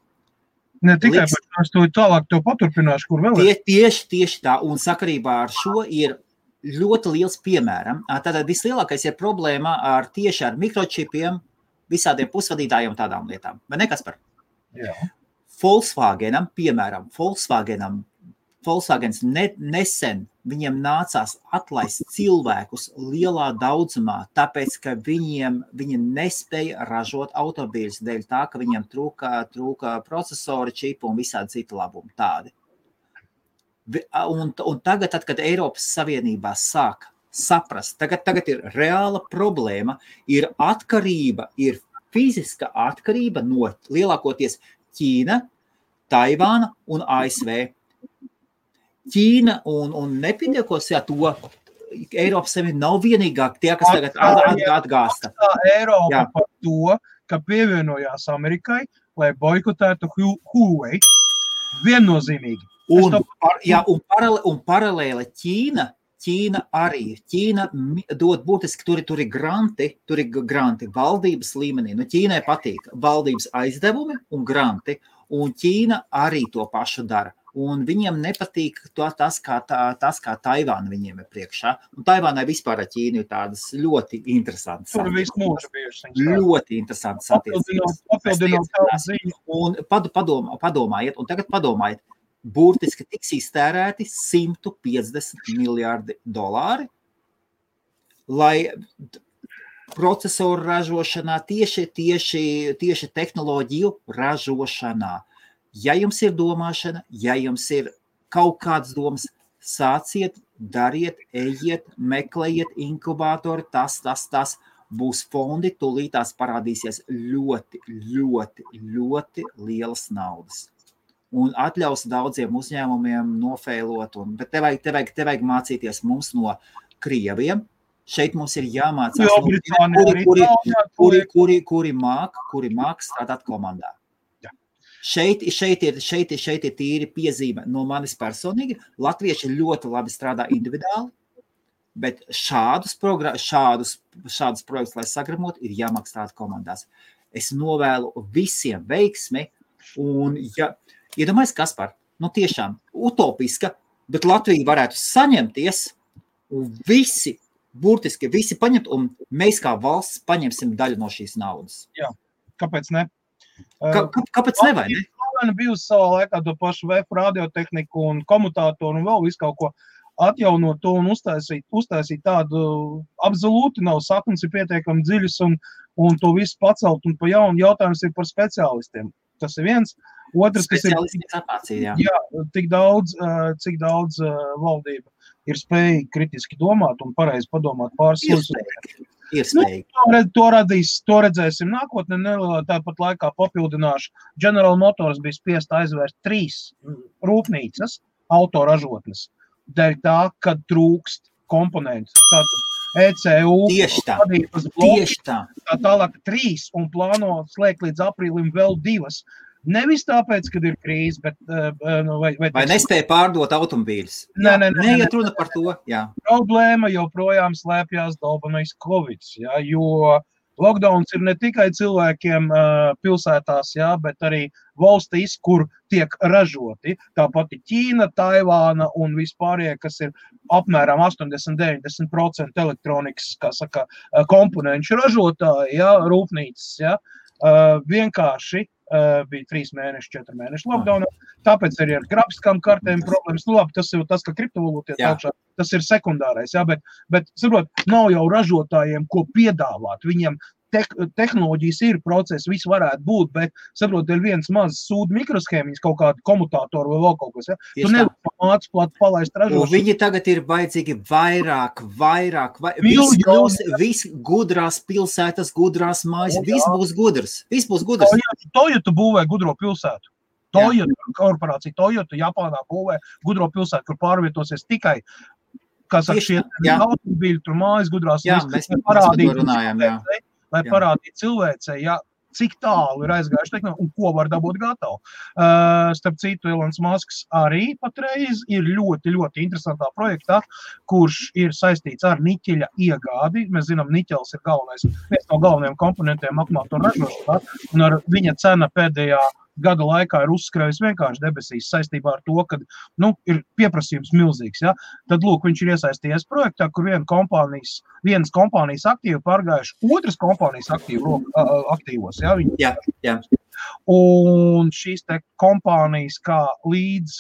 Ne tikai par to tālāk to paturpināšu, kur vēl ir. Tieši tā, un sakarībā ar šo ir ļoti liels piemēram. Tātad vislielākais ir problēma tieši ar mikročipiem, visādiem pusvadītājiem un tādām lietām. Vai ne, Kaspar? Jā. Volkswagenam Volkswagens nesen viņiem nācās atlaist cilvēkus lielā daudzumā, tāpēc, ka viņi nespēja ražot automobīļus dēļ tā, ka viņiem trūka procesori, čipu un visādi citi labumi tādi. Un tagad, kad Eiropas Savienībā sāk saprast, tagad ir reāla problēma, ir atkarība, ir fiziska atkarība no lielākoties Ķīna, Taivāna un ASV. Ķīna un nepietiekos, to Eiropas Savienība nav vienīgā tie, kas tagad atgāsta. Eiropa par to, ka pievienojās Amerikai, lai boikotētu Huawei. Viennozīmīgi. Un paralēli Ķīna arī. Ķīna dod būtiski, tur ir granti valdības līmenī. Ķīnai patīk valdības aizdevumi un granti, un Ķīna arī to pašu dara. Un viņiem nepatīk tas, kā Taivāna viņiem ir priekšā. Un Taivānai vispār ar Ķīnu ir tādas ļoti interesantas. Tur visu mūžu bijuši. Ļoti interesantas attiecības. Un padomājiet, un tagad padomājiet, burtiski tiks iztērēti $150 miljārdi, lai procesoru ražošanā, tieši tehnoloģiju ražošanā. Ja jums ir domāšana, ja jums ir kaut kādas domas, sāciet, dariet, ejiet, meklējiet inkubātori, tas, būs fondi, tūlītās parādīsies ļoti, ļoti, ļoti lielas naudas. Un atļaus daudziem uzņēmumiem nofeilot, bet te vajag mācīties mums no Krieviem. Šeit mums ir jāmācās, kuri māk strādāt komandā. Šeit ir tīri piezīme no manis personīgi. Latvieši ļoti labi strādā individuāli, bet šādus projektus, lai sagramot, ir jāmāk strādāt komandās. Es novēlu visiem veiksmi, un iedomājies, Kaspar, tiešām utopiska, bet Latvija varētu saņemties, un burtiski visi paņemt, un mēs kā valsts paņemsim daļu no šīs naudas. Jā, kāpēc ne? Kāpēc ne, vai ne? Latvija bijusi savā laikā to pašu VF radiotehniku un komutātoru un vēl visu kaut ko atjaunot to un uztaisīt tādu absolūti nav saknes ir pietiekami dziļas un to visu pacelt un pa jaunu jautājums ir par speciālistiem. Tas ir viens. Otrs, kas ir, cik daudz valdība ir spējīgi kritiski domāt un pareizi padomāt pāris To redzēsim nākotnē, tāpat laikā papildināšu. General Motors bija spiest aizvērst 3 rūpnīcas, autoražotnes, dēļ tā, kad trūkst komponentus. Tātad ECU, tieši tā. Tālāk 3 un plāno slēgt līdz aprīlim vēl 2. Nevis tāpēc, kad ir krīze, bet... Vai nespēja pārdot automobīļus? Neiet runa par to, jā. Problēma joprojām slēpjās dalbanais Covid, jo lockdowns ir ne tikai cilvēkiem pilsētās, bet arī valstīs, kur tiek ražoti. Tāpat Ķīna, Taivāna un vispārējie, kas ir apmēram 80-90% elektronikas, komponenču ražotāji, rūpnīcas, vienkārši bija 3 mēneši, 4 mēneši lockdownā, tāpēc arī ar grafiskām kartēm problēmas. Tas ir tas, ka kriptovalūtiet augšā, tas ir sekundārais, bet saprot, nav jau ražotājiem, ko piedāvāt. Viņiem tehnoloģijas ir procesi, viss varētu būt, bet, saprot, ir viens mazs sūdu mikroshēmiņas, kaut kādu komutātoru vai vēl kaut kas, Tu nevar māc plāt palaist ražošanu. Viņi tagad ir vajadzīgi vairāk. Viss gudrās pilsētas, gudrās mājas, viss būs gudrs. Toyota būvē gudro pilsētu. Korporācija Toyota Japānā būvē gudro pilsētu, kur pārvietosies tikai šie automobīļi, tur mājas gudrās. Lai parādītu cilvēcei, cik tālu ir aizgājuši tehnoloģija un ko var dabūt gatavu. Starp citu, Elons Musks arī patreiz ir ļoti, ļoti interesantā projektā, kurš ir saistīts ar niķeļa iegādi. Mēs zinām, niķelis ir viens no galvenajiem komponentiem akumulātoru ražošanā, un ar viņa cena pēdējā gada laikā ir uzskrējusi vienkārši debesīs saistībā ar to, ka ir pieprasījums milzīgs. Tad, lūk, viņš ir iesaistījies projektā, kur vienas kompānijas aktīvi pārgājuši otras kompānijas aktīvos. Jā. Un šīs te kompānijas kā līdz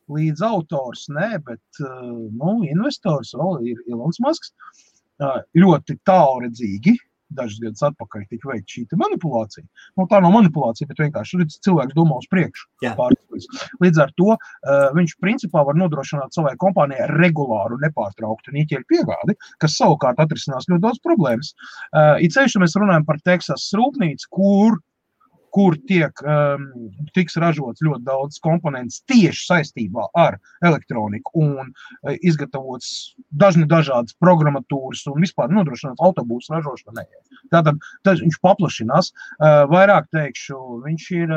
līdz autors, bet investors vēl ir Elons Musks. Ļoti tālredzīgi. Dažus gadus atpakaļ tika veikta šī manipulācija. Tā nav manipulācija, bet vienkārši cilvēks domā uz priekšu. Līdz ar to viņš principā var nodrošināt savai kompānijai regulāru, nepārtrauktu niķeļu piegādi, kas savukārt atrisinās ļoti daudz problēmas. It sevišķi mēs runājam par Teksasas rūpnīcu, kur tiks ražots ļoti daudz komponents tieši saistībā ar elektroniku un izgatavots dažādas programmatūras un vispār nodrošināts autobūsu ražošanai. Tātad viņš paplašinās. Vairāk teikšu, viņš ir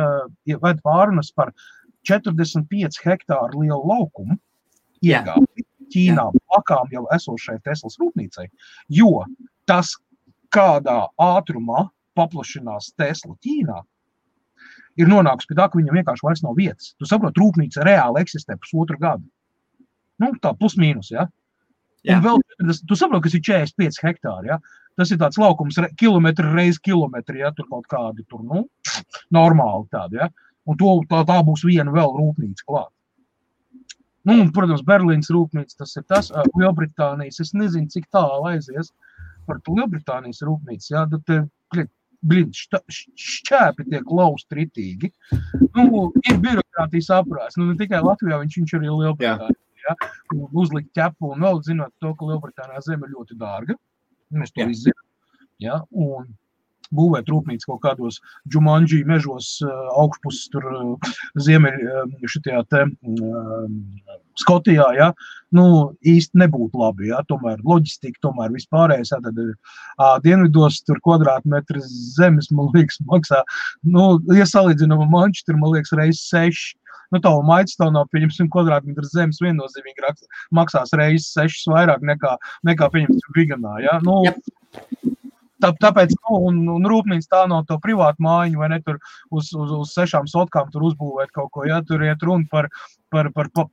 ved pārunas par 45 hektāru lielu laukumu iegādi Ķīnā plakām jau esošai Teslas rūpnīcai, jo tas, kādā ātrumā paplašinās Tesla Ķīnā, ir nonākusi pie tā, ka viņam vienkārši vairs nav vietas. Tu saproti, rūpnīca reāli eksistē pusotru gadu. Tā plus mīnus, ja? Un vēl, tu saproti, kas ir 45 hektāri, ja? Tas ir tāds laukums kilometri reiz kilometri, ja? Tur kaut kādi, normāli tādi, ja? Un tā būs viena vēl rūpnīca klāt. Un, protams, Berlīnas rūpnīca, tas ir tas, Lielbritānijas, es nezinu, cik tālu aizies par Lielbritānijas rūpnīcu, ja? Šķēpi tiek lausti ritīgi. Ir birokrātijas aprās. Ne tikai Latvijā, viņš arī Lielbritānijā. Ja? Uzlikt ķepu un vēl zinot to, ka Lielbritānijā zeme ir ļoti dārga. Mēs to izzinām. Ja? Un būvēt rūpnīcu kaut kādos Džumanģī mežos augšpuses tur šitajā Skotijā, ja? Īsti nebūtu labi, ja? Tomēr loģistika, tomēr vispārējais, ja? Tad dienvidos tur kvadrātmetri zemes, man liekas, maksā, ja salīdzinām Manchester, man liekas, reiz 6. Tavu Maidstone, pieņemsim, kvadrātmetru zemes viennozīmīgi maksās reiz 6 vairāk nekā pieņemsim Viganā, ja? Tāpēc, un rūpnīca tā nav to privātu mājiņu, vai ne, tur uz 6 sotkām tur uzbūvēt kaut ko, ja, tur iet runa par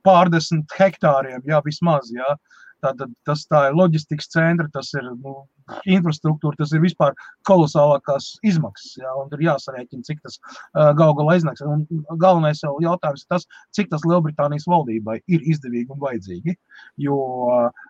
pārdesmit hektāriem, jā, vismaz, jā. Tātad tā ir loģistikas centra, tas ir infrastruktūra, tas ir vispār kolosālākās izmaksas, jā, un tur jāsarēķina, cik tas gal galā iznāks. Un galvenais jau jautājums ir tas, cik tas Lielbritānijas valdībai ir izdevīgi un vajadzīgi, jo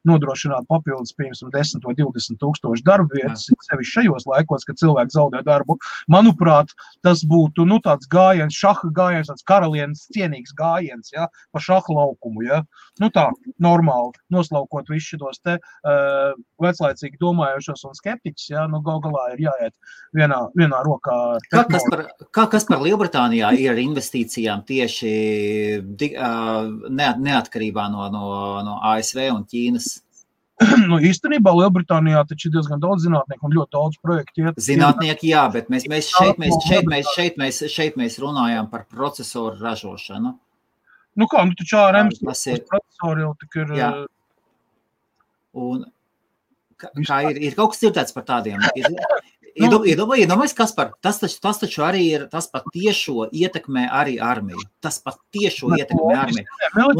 nodrošināt papildus, piemēram, 10 vai 20 tūkstoši darba vietas, sevišķi šajos laikos, kad cilvēki zaudē darbu, manuprāt, tas būtu, tāds gājiens, šaha gājiens, tāds karalienes cienīgs gājiens, jā, pa šaha laukumu, jā. Tā, normāli, noslaukot visu šitos te veclaicīgi domājušos un skeptiķus, jā, gal galā ir jāiet vienā rokā. Kas par Lielbritānijā ir ar investīcijām tieši neatkarībā no ASV un Ķīnas? Īstenībā Lielbritānijā taču ir diezgan daudz zinātnieku un ļoti daudz projektu. Zinātnieki, jā, bet šeit mēs runājām par procesoru ražošanu. Taču ARMs procesori jau tik ir... Jā. Un ir kaut kas dzirdēts par tādiem? Iedomājies, Kaspar, tas taču arī ir, tas pat tiešo ietekmē arī armiju. Tas pat tiešo ietekmē armiju. Un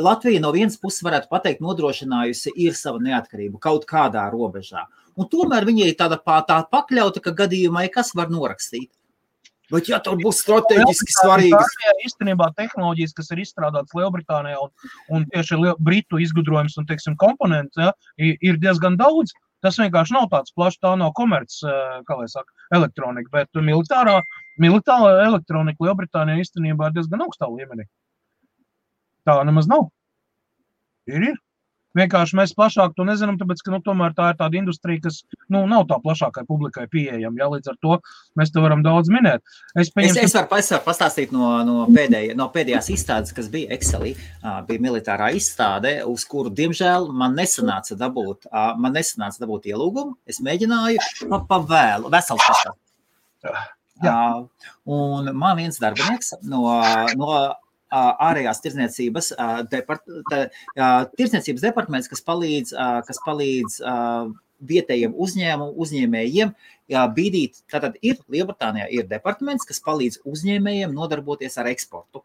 Latvija no vienas puses varētu pateikt nodrošinājusi ir sava neatkarība kaut kādā robežā. Un tomēr viņa ir tāda pakļauta, ka gadījumā kas var norakstīt. Bet ja tur būs strateģiski svarīgas. Īstenībā tehnoloģijas, kas ir izstrādātas Lielbritānijā un tieši Britu izgudrojums un, teiksim, komponents, ja, ir diezgan daudz. Tas vienkārši nav tāds plašs, tā nav komerc, kā lai saka, elektronika, bet militāra elektronika Lielbritānijā īstenībā ir diezgan augstā līmenī. Tā nemaz nav. Ir. Vienkārši mēs plašāk to nezinām, tāpēc, ka tomēr tā ir tāda industrija, kas nav tā plašākai publikai pieejama. Ja, līdz ar to mēs te varam daudz minēt. Es varu pastāstīt no pēdējās izstādes, kas bija Excelī, bija militārā izstāde, uz kuru, diemžēl, man nesanāca dabūt ielūgumu. Es mēģināju pa vēlu, vesels pastāstīt. Un man viens darbinieks no ārējās tirdzniecības departaments, kas palīdz vietējiem uzņēmējiem bīdīt. Tātad Lielbritānijā ir departaments, kas palīdz uzņēmējiem nodarboties ar eksportu.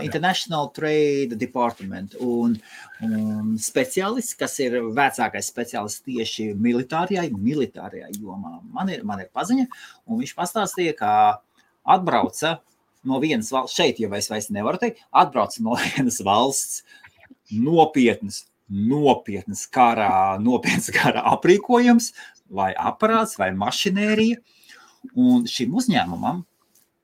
International Trade Department un speciālists, kas ir vecākais speciālists tieši militārajā jomā. Man ir paziņa, un viņš pastāstīja, ka atbrauca no vienas valsts, šeit jau es vairs nevaru teikt, atbrauc no vienas valsts nopietnas kara aprīkojums, vai aparāts, vai mašinērija, un šim uzņēmumam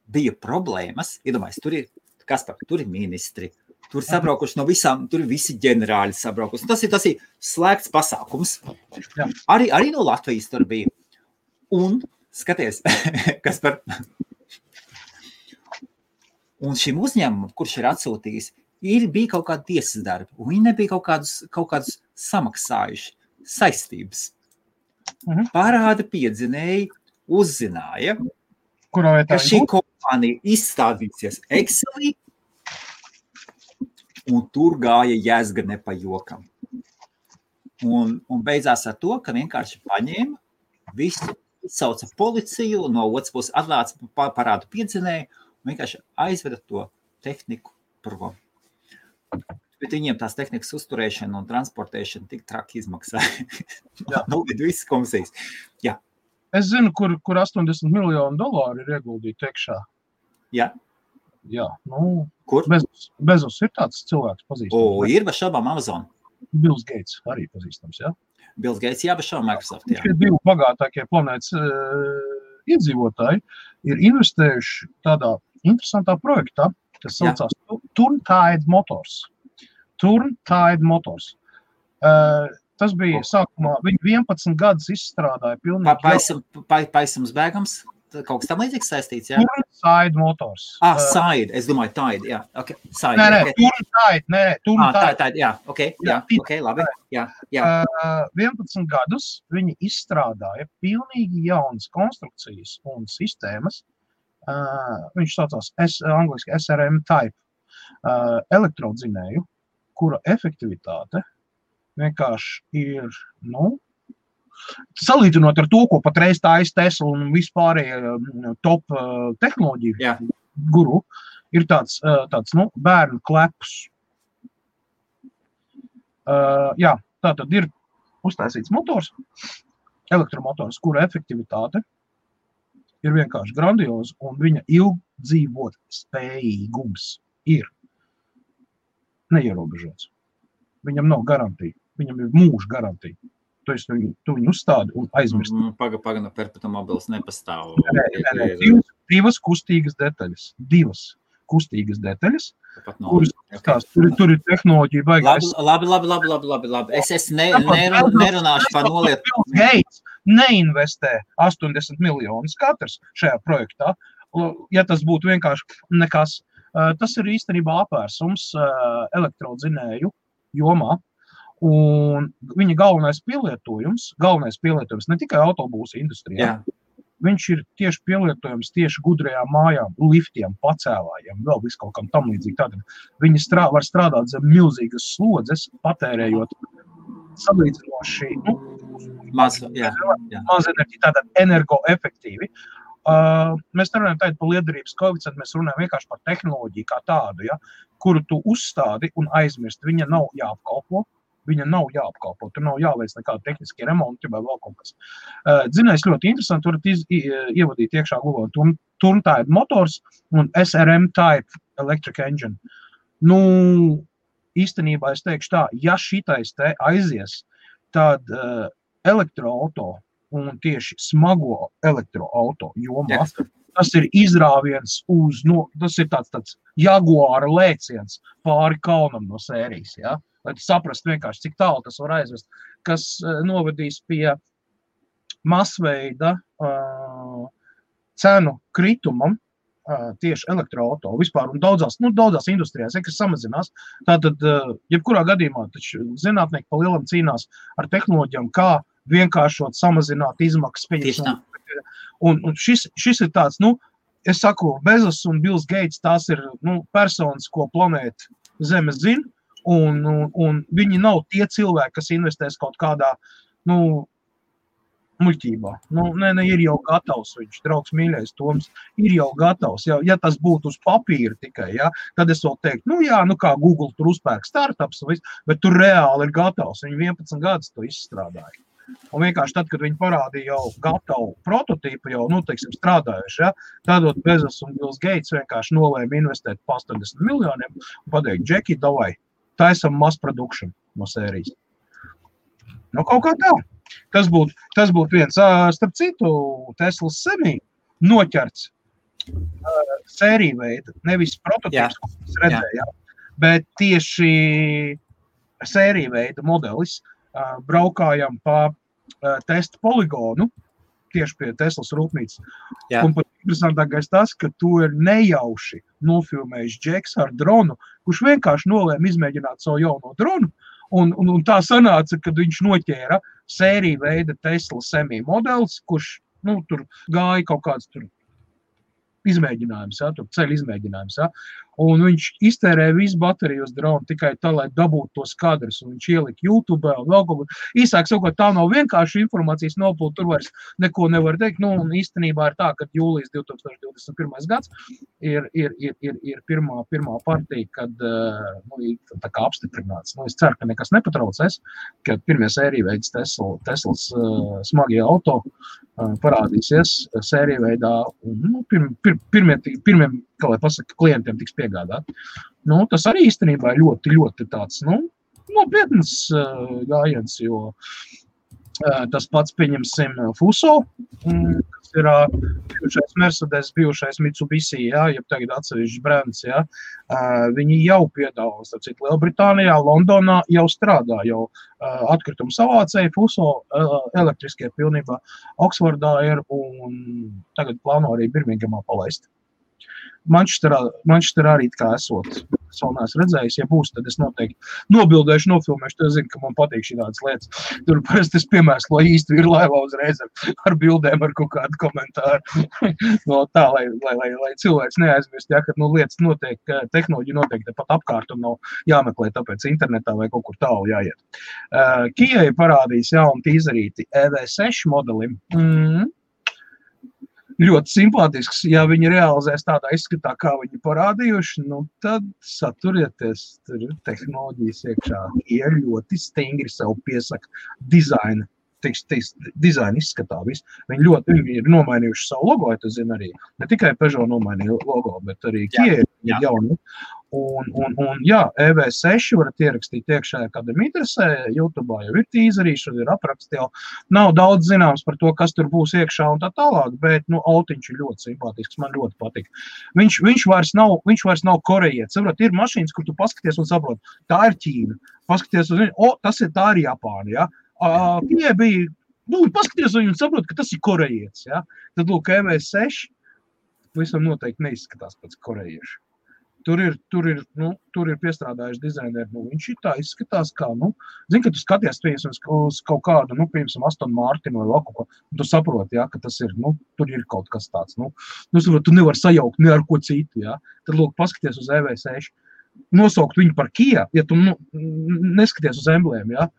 bija problēmas, iedomājies, tur ir ministri, tur sabraukuši no visām, tur ir visi ģenerāļi sabraukuši. Tas ir slēgts pasākums. Arī no Latvijas tur bija. Un, skaties, kas par... Un šim uzņēmumam, kurš ir atsūtījis, bija kaut kāda tiesas darba, un viņi nebija kaut kādus samaksājuši saistības. Parāda piedzinēji uzzināja, ka šī kompānija izstādīsies Excelī, un tur gāja jēzga ne pa jokam. Un beidzās ar to, ka vienkārši paņēma visu, sauca policiju, no otras puses atlāca parādu piedzinēju, un vienkārši aizveda to tehniku prom. Bet viņiem tās tehnikas uzturēšana un transportēšana tik traki izmaksāja. Visas komisijas. Jā. Es zinu, kur $80 miljoni ir ieguldīti tekšā. Jā. Jā, nu, kur? Bezos ir tāds cilvēks pazīstams. Ir bez šaubām Amazon. Bills Gates arī pazīstams, jā? Bills Gates, jā, bez šaubām Microsoft, jā. Šie divi bagātākie planētas iedzīvotāji ir investējuši tādā interesantā projektā, kas saucās Turntide Motors. Turntide Motors. Tas bija sākumā, viņi 11 gadus izstrādāja pilnīgi... Paisams bēgams? Kaut kas tam līdzīgs saistīts, jā? Turntide Motors. Side, es domāju, Tide, jā, ok. Side, Turntide. Tide, jā, ok, labi, jā. 11 gadus viņi izstrādāja pilnīgi jaunas konstrukcijas un sistēmas. Viņš saucās angliski SRM type elektrodzinēju, kura efektivitāte vienkārši ir, salīdzinot ar to, ko patreiz tājas Tesla un vispārējie top tehnoloģiju guru, ir tāds bērnu klepus. Tātad ir uztaisīts motors, elektromotors, kura efektivitāte ir vienkārši grandioza, un viņa ilgdzīvot spējīgums ir neierobežots. Viņam nav garantija, viņam ir mūža garantija. Tu viņu uzstādi un aizmirst. Paga, perpetuum mobilis nepastāv. Divas kustīgas detaļas, kuras tur ir tehnoloģija baigās. Labi. Es nerunāšu par nolietu. Bill Gates neinvestē 80 miljonus katrs šajā projektā. Ja tas būtu vienkārši nekas, tas ir īstenībā apvērsums elektrodzinēju jomā. Un viņa galvenais pielietojums ne tikai autobūsu industrijā, viņš ir tieši pielietojums tieši gudrajām mājām, liftiem, pacēlājiem, vēl visu kaut kam tam līdzīgi. Tātad viņi var strādāt zem milzīgas slodzes, patērējot salīdzinoši maz enerģiju, tātad energoefektīvi. Mēs nerunājam tādu par liederības koeficientu, mēs runājam vienkārši par tehnoloģiju kā tādu, kuru tu uzstādi un aizmirst. Viņa nav jāapkalpo. Tur nav jāveic nekāda tehniskie remonti vai vēl kaut kas. Dzinējs ļoti interesanti, varat ievadīt iekšā Google Turntide Motors un SRM Type Electric Engine. Īstenībā es teikšu tā, ja šitais te aizies, tad elektroauto un tieši smago elektroauto jomā, tas ir izrāviens tas ir tāds Jaguāra lēciens pāri kalnam no sērijas, lai tu saprast vienkārši, cik tālu tas var aizvest, kas novedīs pie masveida cenu kritumam tieši elektroauto vispār un daudzās industrijās, kas samazinās. Tātad, jebkurā gadījumā, taču zinātnieki pa lielam cīnās ar tehnoloģijām, kā vienkāršot, samazināt izmaksas. Un šis ir tāds, es saku, Bezos un Bills Gates, tās ir personas, ko planēta Zeme zina, un viņi nav tie cilvēki, kas investēs kaut kādā, muļķībā. Ir jau gatavs, viņš, draugs mīļais Toms, ir jau gatavs. Ja tas būtu uz papīra tikai, tad es vēl teiktu, kā Google tur uzpērk startups, bet tur reāli ir gatavs. Viņi 11 gadus to izstrādāja. Un vienkārši tad, kad viņi parādīja jau gatavu prototīpu, jau, teiksim, strādājuši, ja, tādot Bezos un Bills Gates vienkārši nolēma investēt pa 80 miljoniem un pateikt, Džeki, davai, taisam mass production no sērijas. Kaut kā tā. Tas būtu viens. Starp citu, Teslas Semi noķerts sēriju veida, nevis prototīps, ko mēs redzējām, bet tieši sēriju veida modelis braukājam pa testa poligonu, tieši pie Teslas rūpnīcas. Jā. Un pat interesantākais tas, ka tu ir nejauši nofilmējis Džeks ar dronu, kurš vienkārši nolēma izmēģināt savu jauno dronu, un tā sanāca, kad viņš noķēra sēriju veida Tesla Semi modelis, kurš, tur gāja kaut kāds tur izmēģinājums, ja, tur ceļu izmēģinājums, ja, un viņš iztērēja visu bateriju uz dronu tikai tā, lai dabūtu tos kadrus, un viņš ielika YouTube un vēl kaut ko. Īsāk sakot, tā nav vienkārši informācijas nopūta, tur vairs neko nevar teikt, un īstenībā ir tā, ka jūlijas 2021. Gads ir pirmā partija, kad tā kā apstiprināts. Es ceru, ka nekas nepatraucēs, kad pirmie sēriju veids Teslas smagie auto parādīsies sēriju veidā, un pirmiem, kā lai pasaka, klientiem tiks piegādāt. Tas arī īstenībā ir ļoti, ļoti tāds, nopietnas gājiens, jo tas pats, pieņemsim, Fuso, kas ir bijušais Mercedes, bijušais Mitsubishi, ja tagad atsevišķs brands, ja, viņi jau piedāvā, starp citu, Lielbritānijā, Londonā jau strādā, jau atkritumu savācēji, Fuso elektriskie pilnībā Oksfordā ir un tagad plāno arī Birmingemā palaist. Manchesterā arī kā esot. Es vēl neesmu redzējis, ja būs, tad es noteikti nobildēšu, nofilmēšu, tad es zinu, ka man patīk šādas lietas. Tur parasti es piemēslo īsti ir laivā uzreiz ar bildēm, ar kaut kādu komentāru. Tā, lai cilvēks neaizmirst, ja, kad lietas notiek, tehnoloģija notiek tepat apkārt un nav jāmeklē tāpēc internetā vai kaut kur tālu jāiet. Kijai parādīs jaunu tīzerīti EV6 modelim. Ļoti simpātisks, ja viņi realizēs tādā izskatā, kā viņi parādījuši, tad saturieties, tur ir tehnoloģijas iekšā. Ir ļoti stingri sev piesaka dizaina, dizaina izskatā visu. Viņi ir nomainījuši savu logo, ja tu zini arī. Ne tikai Peugeot nomainīja logo, bet arī Kia ir jauni. Un jā, EV6 varat ierakstīt iekšā, kad interesē, YouTube jau ir tīzerīši, ir apraksti jau. Nav daudz zināms par to, kas tur būs iekšā un tā tālāk, bet, autiņš ir ļoti simpātisks, man ļoti patīk. Viņš vairs nav korejietis. Saprot, ir mašīnas, kur tu paskaties un saprot, tā ir Ķīna. Paskaties uz viņu, tā ir Japāna, ja. Tie bija, paskaties uz viņu un saprot, ka tas ir korejietis, ja. Tad, EV6 visam noteikti neizskatās pēc korejiešu. Tur ir piestrādājuši dizaineri, viņš ir tā izskatās kā, zini, ka tu skaties uz kaut kādu, piemēram, Aston Martin vai kaut ko, un tu saproti, ja, ka tas ir, tur ir kaut kas tāds, saprot, tu nevar sajaukt ne ar ko citu, ja, tad, paskaties uz EV6, nosaukt viņu par Kia, ja tu, neskaties uz emblēmu, ja,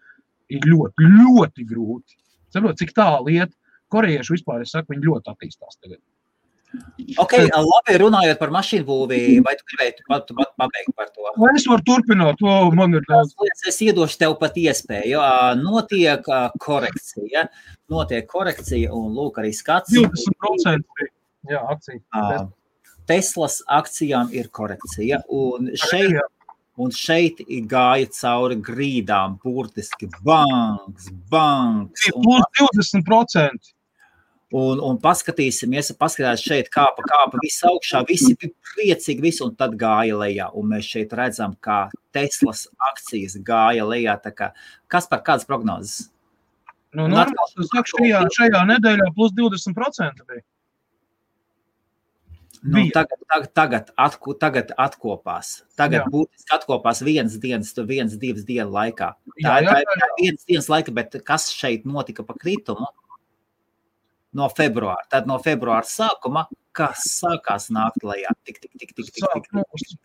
ir ļoti, ļoti grūti. Saprot, cik tālu iet, korejieši vispār, es saku, viņi ļoti attīstās tagad. Ok, labi, runājot par mašīnu būvī, vai tu gribētu pabeigt par to? Es varu turpināt, man ir daudz. Es iedošu tev pat iespēju, notiek korekcija, un lūk arī skats. 20% jā, akcija. Teslas akcijām ir korekcija, un šeit gāja cauri grīdām, burtiski banks. Plus 20%. Un paskatīsimies šeit kāpa visu augšā, visi bija priecīgi, visi, un tad gāja lejā. Un mēs šeit redzam, kā Teslas akcijas gāja lejā. Tā kā, kādas prognozes? Šajā nedēļā plus 20% bija. Tagad atkopās. Tagad būtiski atkopās vienas, divas dienu laikā. Tā ir vienas dienas laika, bet kas šeit notika pa kritumu? No februāra. Tad no februāra sākuma, kas sākās nākt lejā? Tik.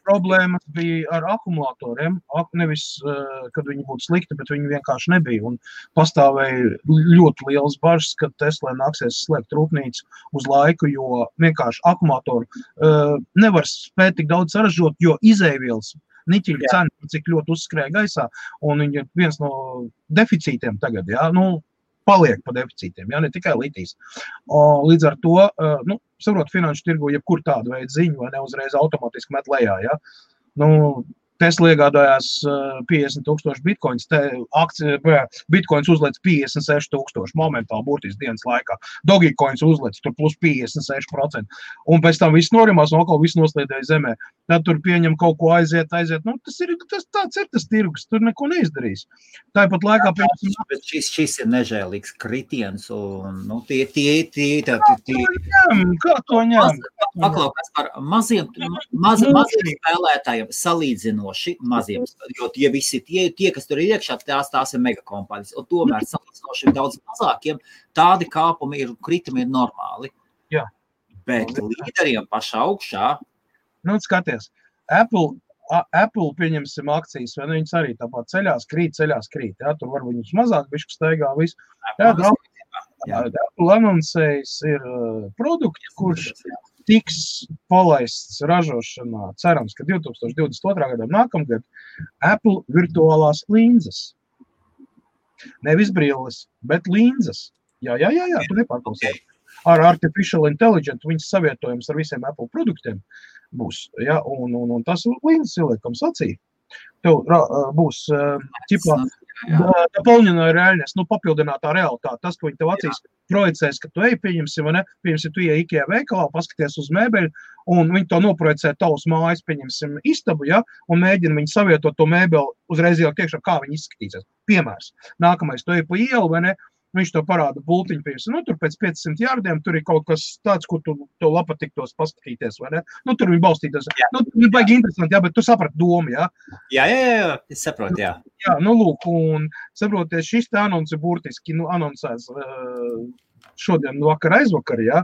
Problēmas bija ar akumulatoriem. Nevis, kad viņi būtu slikti, bet viņi vienkārši nebija. Un pastāvēja ļoti liels bažas, kad Teslai nāksies slēgt rūpnīcu uz laiku, jo vienkārši akumulatoru nevar spēt tik daudz saražot, jo izēvielas niķiļa cena, cik ļoti uzskrēja gaisā. Un viņi ir viens no deficītiem tagad, jā. paliek pa deficītiem, ja, ne tikai litijas. Līdz ar to, saprot, finanšu tirgu, jebkur tādu veidu ziņu, vai ne uzreiz automātiski met lejā, ja. Tesla iegādājās 50,000 bitcoins, bitcoins uzlēc 56,000 momentāli burtiski dienas laikā. Dogecoins uzlēc tur plus 56%. Un pēc tam viss norimās un atkal viss noslīdēja zemē. Tad tur pieņem kaut ko aiziet. Tāds ir tas tirgus, tur neko neizdarīs. Tāpat laikā... Bet šis ir nežēlīgs kritiens un, Kā to ņem? Paklaukās par maziem spēlētājiem salīdzinoši maziem, jo tie visi, tie kas tur ir iekšā, tās ir megakompānijas, un tomēr salīdzinoši daudz mazākiem, tādi kāpumi ir, kritumi ir normāli. Jā. Bet līderiem pašā augšā. Skaties, Apple pieņemsim akcijas, vai viņas arī tāpat ceļās krīt, jā, tur var viņus mazāk, bišķi staigā visu. Apple anoncējis ir produkti, kurš tiks palaists ražošanā, cerams, ka 2022. gadā nākamgad Apple virtuālās linzes. Nevis brilles, bet linzes. Jā, tu nepārklausies. Ar Artificial Intelligence viņas savietojums ar visiem Apple produktiem būs, ja, un tas linzes ieliekams acī. Tev būs, doполненная реальность, papildinātā realitāte. Tas, ko viņi tev acīs projicēs, ka tu pieņemsim, vai ne? Pieņemsim, tu IKEA veikalā, paskaties uz mēbeļu, un viņi to noprojicē tavus mājas, pieņemsim istabu, ja, un mēģina viņi savietot to mēbeli uzreiz jau tiekšā, kā viņi izskatīsies. Piemērs. Nākamais, tu pa ielu, vai ne? Viņš to parāda bultiņu piesim. Tur pēc 500 jārdiem, tur ir kaut kas tāds, kur tu to patiktos paskatīties, vai ne? Tur viņi balstītos. Viņi baigi interesanti, jā, bet tu saprati domu, jā? Jā, es saprotu, jā. Jā, lūk, un saproties, šis te anonsi burtiski, anoncēs šodien vakar aizvakar, jā.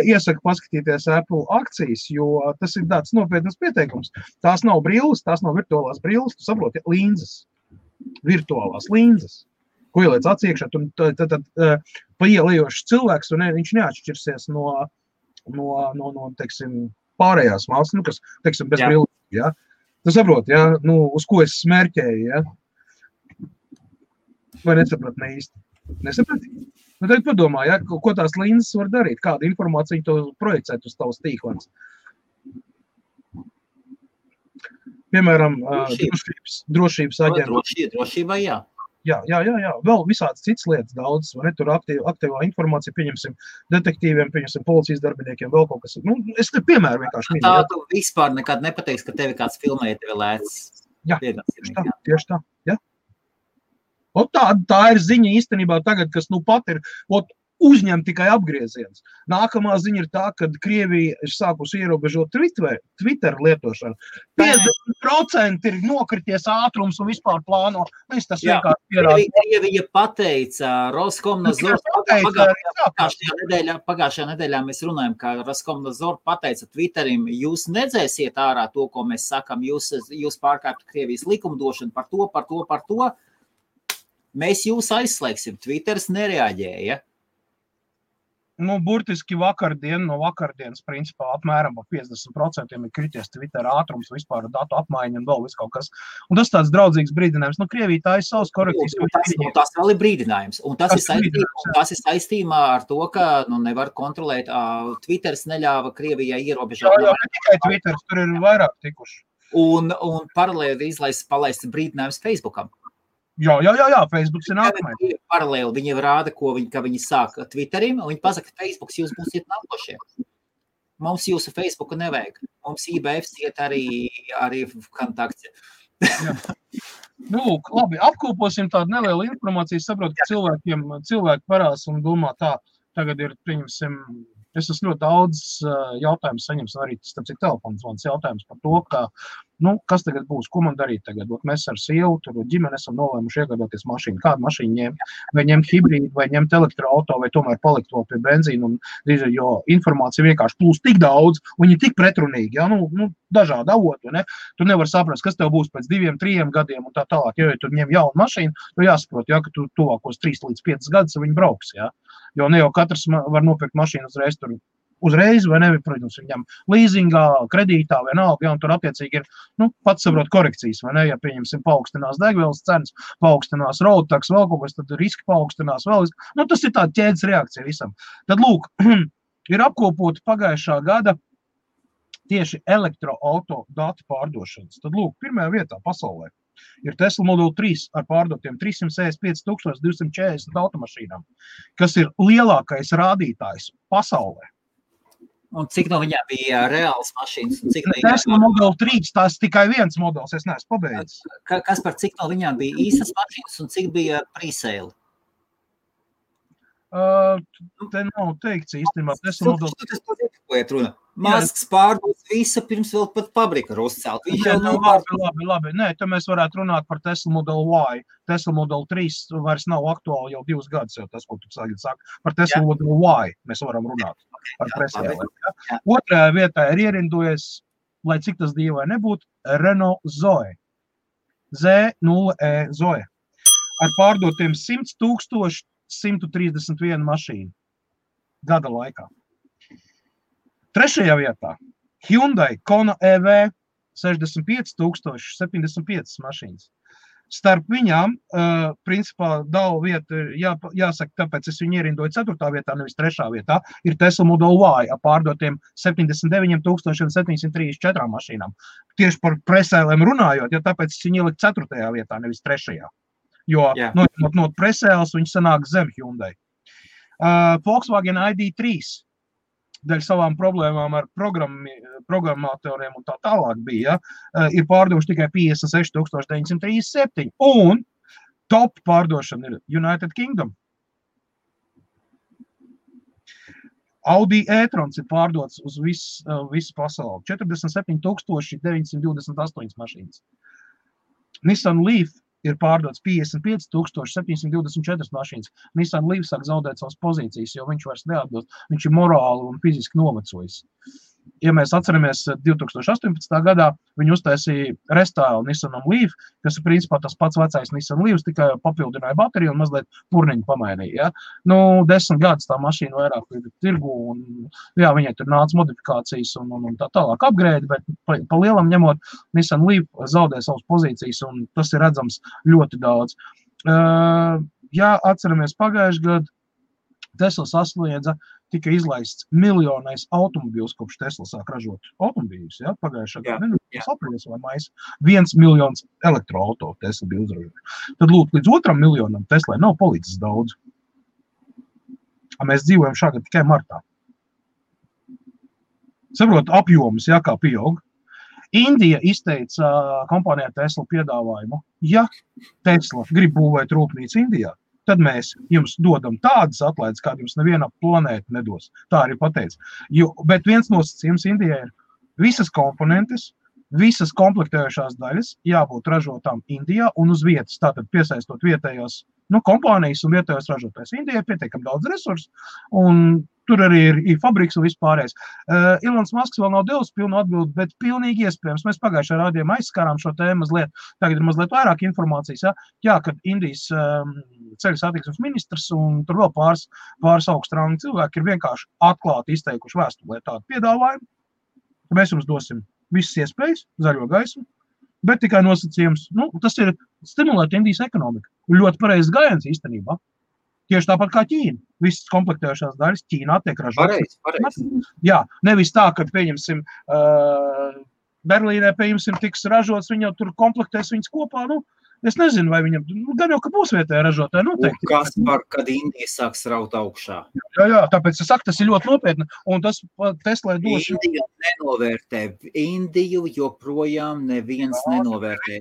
Iesaku paskatīties Apple akcijas, jo tas ir tāds nopietnas pieteikums. Tās nav brilles, tās nav virtuālās brilles, tu saproti, linzes. Virtuālās linzes. Ko ieliec atsiekšā, tad paielējošs cilvēks, un viņš neatšķirsies no teiksim, pārējās valsts, kas, teiksim, bez brilles, ja? Tu saproti, ja? Uz ko es smērķēju, ja? Vai nesaprat ne īsti? Nesaprat? Tagad padomā, ja? Ko tās linzes var darīt, kādu informāciju to projicēt uz tavas tīklens. Piemēram, drošības aģenta. Drošība, jā. Jā. Vēl visādas citas lietas daudz, vai ne? Tur aktīvā informācija, pieņemsim detektīviem, pieņemsim policijas darbiniekiem, vēl kaut kas. Es te piemēru vienkārši minu. Tā tu vispār nekad nepateiks, ka tevi kāds filmē, tevi lēc. Jā, tieši tā, jā. Tā ir ziņa īstenībā tagad, kas pat ir, uzņem tikai apgrieziens. Nākamā ziņa ir tā, ka Krievija ir sākusi ierobežot Twitter lietošanu. 50% ir nokrities ātrums un vispār plāno. Tas vienkārši pierāda. Krievija pateica, Roskomnadzor pagājušajā nedēļā mēs runājam, ka Roskomnadzor pateica Twitterim, jūs nedzēsiet ārā to, ko mēs sakam, jūs pārkāptu Krievijas likumdošanu par to. Mēs jūs aizslēgsim. Twitters nereaģēja. Burtiski no vakardienas, principā, apmēram 50% ir krities Twitter ātrums, vispār datu apmaiņa un vēl viss kaut kas. Un tas tāds draudzīgs brīdinājums. Krievija tā ir savas korekcijas. Tas vēl ir brīdinājums. Un tas ir saistībā ar to, ka nevar kontrolēt. Twitters neļāva Krievijai ierobežot. Jā, ne tikai Twitters, tur ir vairāk tikuši. Un paralēli palaist brīdinājums Facebookam. Jā, Facebooks ir nākamais. Paralēli viņi rāda, ka viņi sāk Twitterim, un viņi pasaka, ka Facebooks jūs būsiet nākošie. Mums jūsu Facebooku nevajag. Mums IBFs iet arī kontakti. Labi, apkoposim tādu nelielu informāciju. Saprotu, ka cilvēki parās un domā tā, tagad ir, pieņemsim, es esmu ļoti daudz jautājumus saņems, arī starp citu telefons jautājums par to, ka, kas tagad būs, ko man darīt tagad? Mēs ar sievu, tur ģimeni esam nolēmuši iegādāties mašīnu. Kādu mašīnu ņemt? Vai ņemt hibrīdu, vai ņemt elektroauto, vai tomēr palikt vēl pie benzīna, jo informācija vienkārši plūst tik daudz, un viņi tik pretrunīgi, ja? Dažādi avoti, ne? Tu nevar saprast, kas tev būs pēc 2-3 gadiem un tā tālāk. Ja tu ņem jaunu mašīnu, tu jāsaprot, ja, ka tu tuvākos 3 līdz 5 gadus viņi brauks, ja? Jo ne jau katrs var nopirkt mašīnu uzreiz tur uzreiz, vai ne, protams, viņam leasingā, kredītā, vienalga, ja, un tur attiecīgi ir, pats saprot korekcijas, vai ne, ja pieņemsim paaugstinās degvielas cenas, paaugstinās road tax, vēl kaut kas, tad riski paaugstinās vēl, tas ir tāda ķēdes reakcija visam. Tad, lūk, ir apkopoti pagājušā gada tieši elektroauto datu pārdošanas. Tad, lūk, pirmajā vietā pasaulē ir Tesla Model 3 ar pārdotiem 365,240 automašīnām, kas ir lielākais rādītājs pasaulē. Un cik no viņām bija reāls mašīnas? Tesla Model 3, tās tikai viens modelis, es neesmu pabeidzis. Kas par cik no viņām bija īstas mašīnas un cik bija pre-sale? Te nav teikts īstenībā. Tesla Model... Masks pārdos visa pirms vēl pat pabrika ir uzcelt. Labi. Nē, te mēs varētu runāt par Tesla Model Y. Tesla Model 3 vairs nav aktuāli jau 2 gadus, jau tas, ko tu saka. Par Tesla Model Y mēs varam runāt par presēlēm. Otrajā vietā ir ierindojies, lai cik tas dīvai nebūtu, Renault Zoe. Z0E Zoe. Ar pārdotiem 100,131 mašīnu gada laikā. Trešajā vietā Hyundai Kona EV 65,075 mašīnas. Starp viņām, principā, dala vieta, jāsaka, tāpēc es viņu ierindoju 4. vietā, nevis 3. vietā, ir Tesla Model Y ar pārdotiem 79,734 mašīnām. Tieši par presēlēm runājot, ja tāpēc es viņu ieliku 4. vietā, nevis 3. Jo no presēles viņi sanāk zem Hyundai. Volkswagen ID3 dēļ savām problēmām ar programmatoriem un tā tālāk bija, ir pārdoši tikai 56,937. Un top pārdošana ir United Kingdom. Audi e-trons ir pārdots uz visu pasauli. 47,928 mašīnas. Nissan Leaf ir pārdots 55,724 mašīnas. Nissan Leaf sāk zaudēt savas pozīcijas, jo viņš vairs neatbilst. Viņš ir morāli un fiziski novecojis. Ja mēs atceramies 2018. gadā, viņi uztaisīja restālu Nissanam Leaf, kas ir principā tas pats vecais Nissan Leafs, tikai papildināja bateriju un mazliet purniņu pamainīja. Ja? 10 gadus tā mašīna vairāk ir tirgu un viņai tur nāca modifikācijas un tā tālāk upgrade, bet pa lielam ņemot Nissan Leaf zaudē savas pozīcijas un tas ir redzams ļoti daudz. Ja atceramies pagājuši gadu, Tesla sasniedza tika izlaists miljonais automobīls, kopš Tesla sāk ražot automobīļus, ja? Pagājušā gada, aprīlis vai mais, 1 miljons elektroauto Tesla bija uzražot. Tad lūk, līdz 2 miljonam Teslai nav palicis daudz. Mēs dzīvojam šāgad tikai martā. Saprot, apjomus, ja, kā pieaug. Indija izteica kompānijā Tesla piedāvājumu. Ja Tesla grib būvēt rūpnīcu Indijā, tad mēs jums dodam tādas atlaides, kāda jums neviena planēta nedos. Tā arī pateica. Bet viens nosacījums Indijai ir visas komponentes, visas komplektējušās daļas jābūt ražotām Indijā un uz vietas. Tātad piesaistot vietējās kompānijas un vietējos ražotājs. Indijai pietiekam daudz resursu un tur arī ir fabriks un vispārējais. Ilons Masks vēl nav devis pilnu atbildi, bet pilnīgi iespējams. Mēs pagājušajā rādījumā aizskārām šo tēmu mazliet. Tagad ir mazliet vairāk informācijas. Ja? Kad Indijas ceļu satiksmes ministrs un tur vēl pāris augstrāngi cilvēki ir vienkārši atklāti izteikuši vēstulē tādu piedāvājumu. Mēs jums dosim visas iespējas, zaļo gaismu, bet tikai nosacījums. Tas ir stimulēt Indijas ekonomiku. Ļoti pareizs gājiens īstenībā. Tieši tāpat kā Ķīna. Visas komplektējušās daļas Ķīnā tiek ražotas. Pareizi. Jā, nevis tā, kad pieņemsim Berlīnē, pieņemsim, tiks ražots, viņi jau tur komplektēs viņas kopā. Es nezinu, vai viņam, gan jau, ka būs vietēja ražotāja noteikti. Un kas par, kad Indija sāks raut augšā? Jā, tāpēc es saku, tas ir ļoti nopietni. Un tas Teslai dos... Indiju nenovērtē. Indiju joprojām neviens nenovērtē.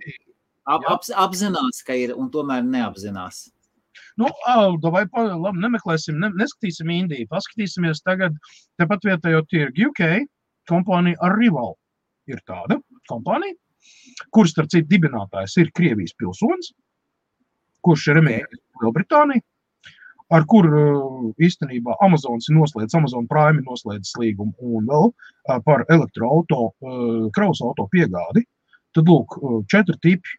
Apzinās, ka ir, un tomēr neapzinās. Vai nemeklēsim, neskatīsim Indiju. Paskatīsimies tagad, tepat vietējo tirgu UK, kompānija Arrival ir tāda kompānija, kuras, starp citu, dibinātājs ir Krievijas pilsonis, kurš ir emigrējis Lielbritāniju, ar kur īstenībā Amazon Prime noslēdzis līgumu un vēl par elektroauto, kravas auto piegādi. Tad, lūk, 4 tipi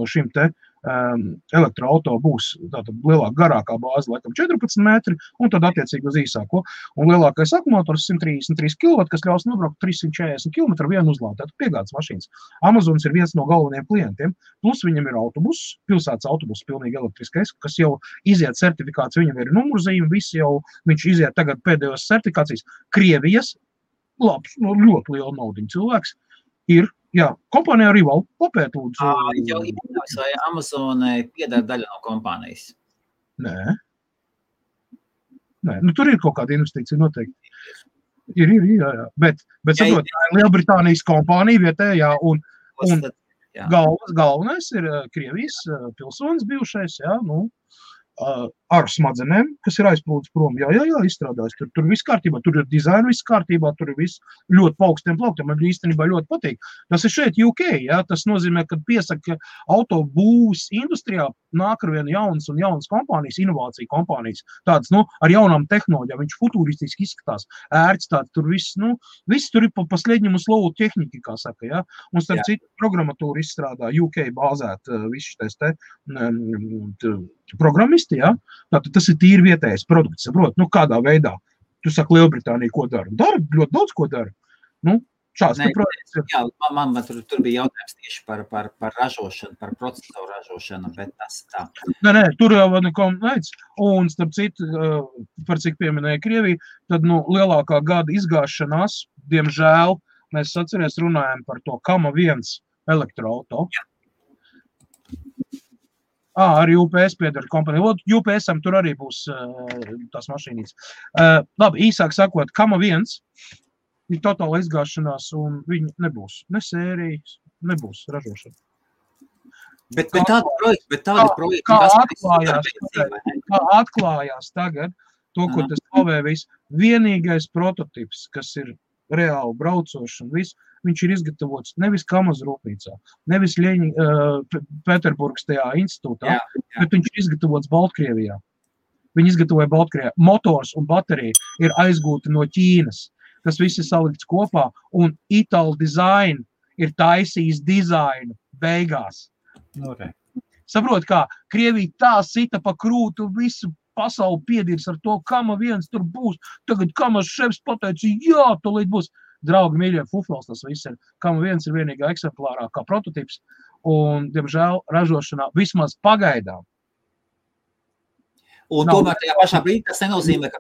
šim te elektroauto būs tātad lielāk garākā bāze, laikam 14 metri, un tad attiecīgi uz īsāko. Un lielākais akumulātors 133 kW, kas ļaus nobraukt 340 km vienu uzlādi, tātad piegādes mašīnas. Amazons ir viens no galvenajiem klientiem, plus viņam ir autobuss, pilsētas autobuss pilnīgi elektriskais, kas jau iziet certifikāciju, viņam ir numurzīme, visi jau, viņš iziet tagad pēdējos certifikācijas. Krievijas, labs, ļoti liela naudiņa cilvēks, ir, jā, kompānija Rival, papēt lūdzu. Jau iedomājos, vai Amazonai pieder daļa no kompānijas? Nē, nu tur ir kaut kāda investīcija noteikti. Ir, jā. Bet saprot, Lielbritānijas kompānija vietējā un galvenais ir Krievijas pilsonis bijušais, jā, nu, ar smadzenēm, kas ir aizplūdis prom. Jā, izstrādājis. Tur viss kārtībā, tur ir dizaina viss kārtībā, tur ir viss ļoti paukstiem plauktiem. Man īstenībā ļoti patīk. Tas ir šeit UK, jā, tas nozīmē, ka piesaka autobūvs industrijā nāk ar vienu jaunas kompānijas, inovāciju kompānijas, tādas, ar jaunām tehnoloģijām, viņš futuristiski izskatās, ērts tāds, tur viss tur ir pa sliedņumu slovu tehniku, kā saka, jā, un starp citu programmatūru izstrādā UK bāzēt visu šitais programmisti, jā, tātad tas ir tīri vietējais produkts, saprot, kādā veidā, tu saki Lielbritānija, ko dara? Dara, ļoti daudz ko dara, šāds projekts ir. Jā, man tur bija jautājums tieši par ražošanu, par procesoru ražošanu, bet tas tā. Nē, tur jau neko neic, un starp citu, par cik pieminēja Krieviju, tad, lielākā gada izgāšanās, diemžēl, mēs atceries runājam par to Kama 1 elektroauto. Jā. Arī UPS piedara kompānija. UPS-am tur arī būs tās mašīnīs. Labi, īsāk sakot, Kama 1 ir totāla izgāšanās, un viņi nebūs. Ne sērijas, nebūs ražošana. Bet tādi projekti, kā atklājās tagad, to, ko tas slavē viss, vienīgais prototips, kas ir reāli braucošs un viss, viņš ir izgatavots nevis Kamaz rūpnīcā, nevis Pēterburgas tajā institūtā, bet viņš ir izgatavots Baltkrievijā. Viņi izgatavoja Baltkrievijā. Motors un baterija ir aizgūti no Ķīnas. Tas viss ir salikts kopā, un Ital Design ir taisījis dizainu beigās. Okay. Saprot, kā Krievija tā sita pa krūtu visu pasauli piedirs ar to, Kama 1 tur būs. Tagad Kamas šefs pateica, jā, tūlīt būs. Draugi, mīļie, fufels tas viss ir. Kama 1 ir vienīgā eksemplārā kā prototips, un, diemžēl, ražošanā vismaz pagaidām. Un tomēr tajā pašā brīdī tas nenozīmē, ka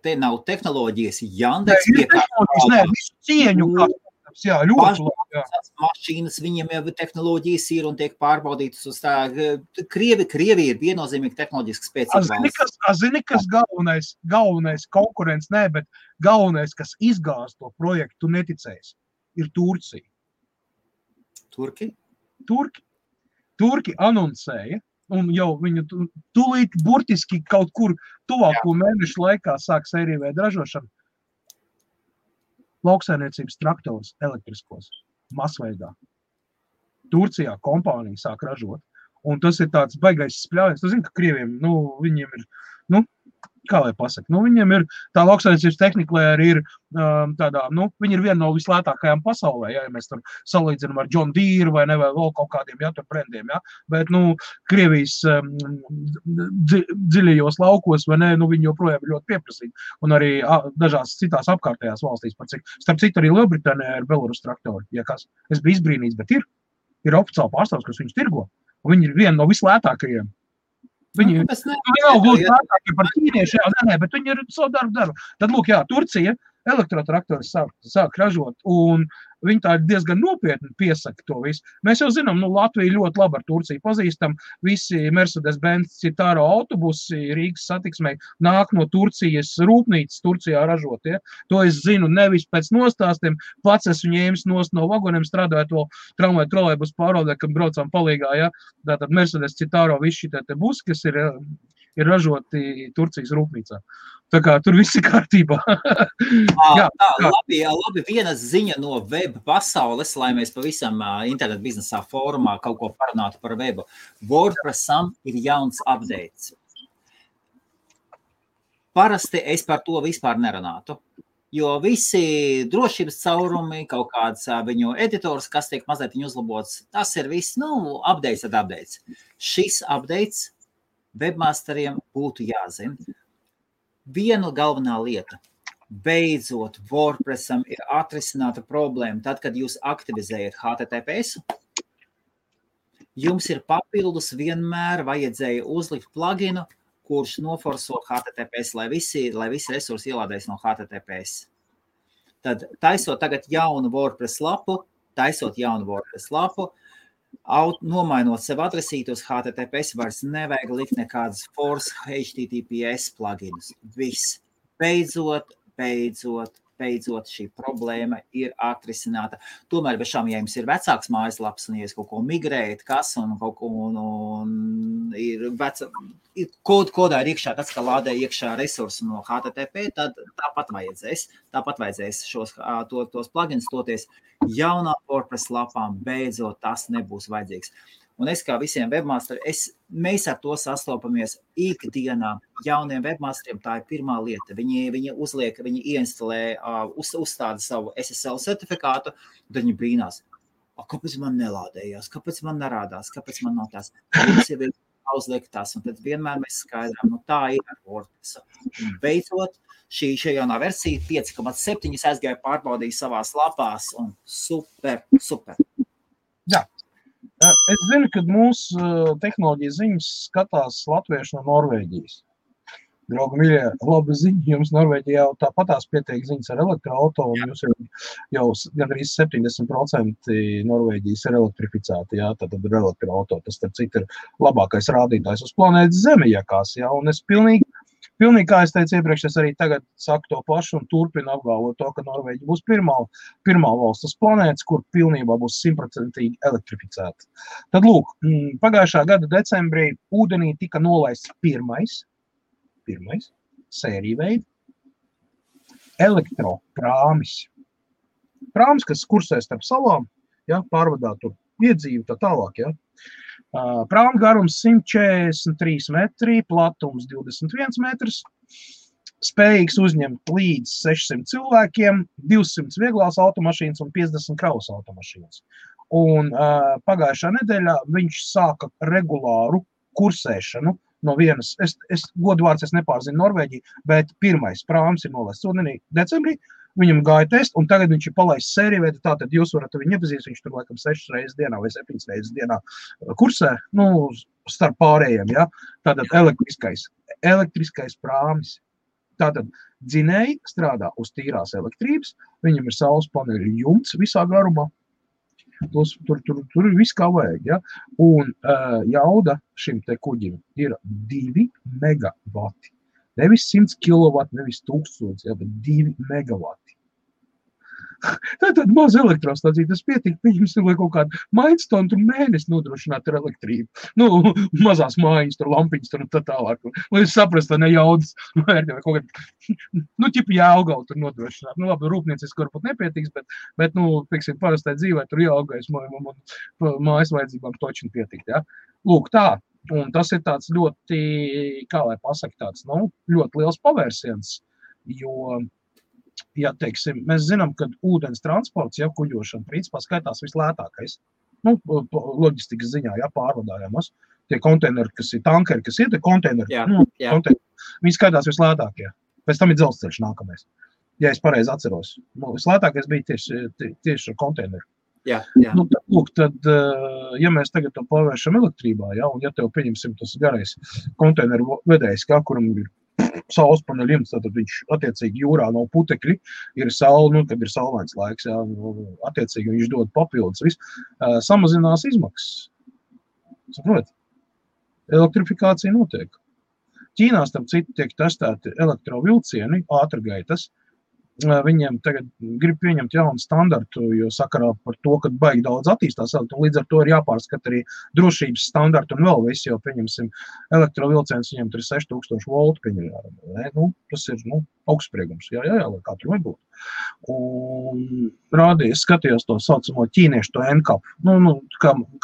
te nav tehnoloģijas. Jandeks Nē, visu cieņu, jā, ļoti labi. Mašīnas, viņiem jau tehnoloģijas ir un tiek pārbaudītas uz tā. Krievi ir viennozīmīgi tehnoloģiski spēcīga valsts. Zini, kas galvenais konkurents, nē, bet galvenais, kas izgāz to projektu, neticējis, ir Turcija. Turki anoncēja, un jau viņu tūlīt burtiski kaut kur tuvāko mēnešu laikā sāk sēriju veidu ražošanu. Lauksaimniecības traktors elektriskos masveidā. Turcijā kompānija sāk ražot, un tas ir tāds baigais spļāviens. Tu zini, ka Krieviem, viņiem ir, kā lai pasaka, viņiem ir tā lauksaimniecības tehnika, lai arī ir tādā, viņi ir viena no vislētākajām pasaulē, ja mēs tur salīdzinām ar John Deere vai ne, vai vēl kaut kādiem, tur brendiem, bet, Krievijas dziļajos laukos, vai ne, viņi joprojām ir ļoti pieprasīgi, un arī dažās citās apkārtējās valstīs, starp citu arī Lielbritānijā ir Belarus traktori, es biju izbrīnīts, bet ir oficiāli pārstāvs, kas viņus tirgo, un viņi ir viena no vislētākajiem. Viņi nav gluži lētākie par ķīniešiem, bet viņi ir savu darbu. Tad, lūk, Turcija elektrotraktori sāk ražot, un viņi tā diezgan nopietni piesaka to visu. Mēs jau zinām, Latvija ļoti labi ar Turciju pazīstam, visi Mercedes-Benz Citaro autobusi Rīgas satiksmei nāk no Turcijas rūpnīcas Turcijā ražot, To es zinu nevis pēc nostāstiem, pats esmu ņēmis no vagoniem, strādājot vēl tramvaju trolejbus pārvaldē, kad braucām palīgā, Tātad Mercedes Citaro visi šitie te busi, kas ir ražoti Turcijas rūpnīcā. Tā kā tur viss ir kārtībā. Labi, viena ziņa no web pasaules, lai mēs pavisam internet biznesā fórumā kaut ko parunātu par webu. WordPressam ir jauns updates. Parasti es par to vispār nerunātu. Jo visi drošības caurumi, kaut kāds viņu editors, kas tiek mazliet viņu uzlabots, tas ir viss, updates tad updates. Šis updates webmasteriem būtu jāzina. Viena galvenā lieta. Beidzot, WordPressam ir atrisināta problēma. Tad, kad jūs aktivizējat HTTPS, jums ir papildus vienmēr vajadzēja uzlikt pluginu, kurš noforso HTTPS, lai visi resursi ielādēs no HTTPS. Tad taisot tagad jaunu WordPress lapu, nomainot sev adresītu uz HTTPS, vairs nevajag likt nekādas force HTTPS pluginus. Viss. Beidzot šī problēma ir atrisināta. Tomēr bez šām, ja jums ir vecāks mājaslaps un ja jūs kaut ko migrējat, un kaut ko ir kodā ir iekšā, tāds, ka lādē iekšā resursu no HTTP, tad tāpat vajadzēs tos plugins toties jaunā WordPress lapām, beidzot tas nebūs vajadzīgs. Un es kā visiem webmasteriem, mēs ar to sastopamies ikdienā. Jauniem webmasteriem tā ir pirmā lieta. Viņi uzliek, viņi ieinstalē, uzstāda savu SSL certifikātu, tad viņi brīnās. Kāpēc man nelādējās? Kāpēc man nerādās? Kāpēc man nav tās? Mums jau ir uzliek tas, un tad vienmēr mēs skaidrām, tā ir ar WordPress. Un beidzot, šī jaunā versija 5.7 aizgāja pārbaudīja savās lapās, un super. Jā. Es zinu, ka mūsu tehnoloģijas ziņas skatās latvieši no Norvēģijas. Draugi mīļie, labi ziņa, jums Norvēģijā jau tāpatās pietiek ziņas ar elektroauto, un jūs jau gandrīz 70% Norvēģijas ir elektrificēti, jā, tad ir elektroauto. Tas, starp citu, ir labākais rādītājs uz planētas Zemi, jākās, jā, un es pilnīgi, kā es teicu iepriekš, es arī tagad saku to pašu un turpinu apgalvot to, ka Norvēģija būs pirmā valsts uz planētas, kur pilnībā būs 100% elektrificēta. Tad lūk, pagājušā gada decembrī ūdenī tika nolaists pirmais sērija veida elektroprāmis. Prāmis, kas kursē starp salām, ja, pārvadā tur iedzīvi tā tālāk, ja. Prāma garums 143 metri, platums 21 metrs, spējīgs uzņemt līdz 600 cilvēkiem, 200 vieglās automašīnas un 50 kravas automašīnas. Un pagājušā nedēļā viņš sāka regulāru kursēšanu no vienas, godvārds es nepārzinu Norvēģiju, bet pirmais prāms ir nolaists ūdenī decembrī, viņam gāja test, un tagad viņš ir palaists sēriju veidā, tātad jūs varat viņu iepazīst, viņš tur laikam 6 reizes dienā vai 7 reizes dienā kursē, starp pārējiem, ja, tātad elektriskais prāmis. Tātad dzinēji strādā uz tīrās elektrības, viņam ir saules paneļu jumts visā garumā, tur ir viss kā vajag, ja, un jauda šim te kuģim ir 2 megavati. Nevis 100 kW, nevis 1000, ja, bet 2 megavati. Tā ir tāda maza elektrostācija, tas pietika, pieņemsim, lai kaut kādu mainstonu tur mēnesi nodrošināt ar elektrību. Mazās mājiņas, tur lampiņas, tur tā tālāk. Lai jūs saprast, tā ne jaudas vērtī, vai kaut kādā, ķipa Jālgavu tur nodrošināt. Labi, rūpnieciski varbūt nepietiks, bet pieksim, parastai dzīvē tur Jālgais mājas vajadzībām točini pietikt, ja. Lūk, tā. Un tas ir tāds ļoti, kā lai pasaka, tāds, ļoti liels pavērsiens, jo, ja teiksim, mēs zinām, ka ūdens transports, ja kuģošana, principā skaitās vislētākais, loģistikas ziņā, ja pārvadājamos, tie konteineri, kas ir tankeri, kas ir, tie konteineri, viņi skaitās vislētākie, pēc tam ir dzelzceļš nākamais, ja es pareizi atceros. Vislētākais bija tieši ar konteineru. Jā. Tad, ja mēs tagad to pārvēršam elektrībā, ja, un ja tev pieņemsim tas garais konteineru vedējs, kuram ir saules paneļu jumts, tad viņš attiecīgi jūrā nav putekļi, ir saule, kad ir saulains laiks, ja, attiecīgi viņš dod papildus, samazinās izmaksas. Saprot? Elektrifikācija notiek. Ķīnā, starp citu, tiek testēti elektrovilcieni, ātrgaitas. Viņiem tagad grib pieņemt jaunu standartu, jo sakarā par to, ka baigi daudz attīstās, un līdz ar to ir jāpārskat arī drošības standartu un vēl visu, jo pieņemsim elektrovilciens, viņiem tur ir 6000 voltu pieņemjā. Tas ir augstspriegums, jā, lai kā tur nebūtu. Un rādīja, es skatījos to saucamo ķīniešu, to NCAP,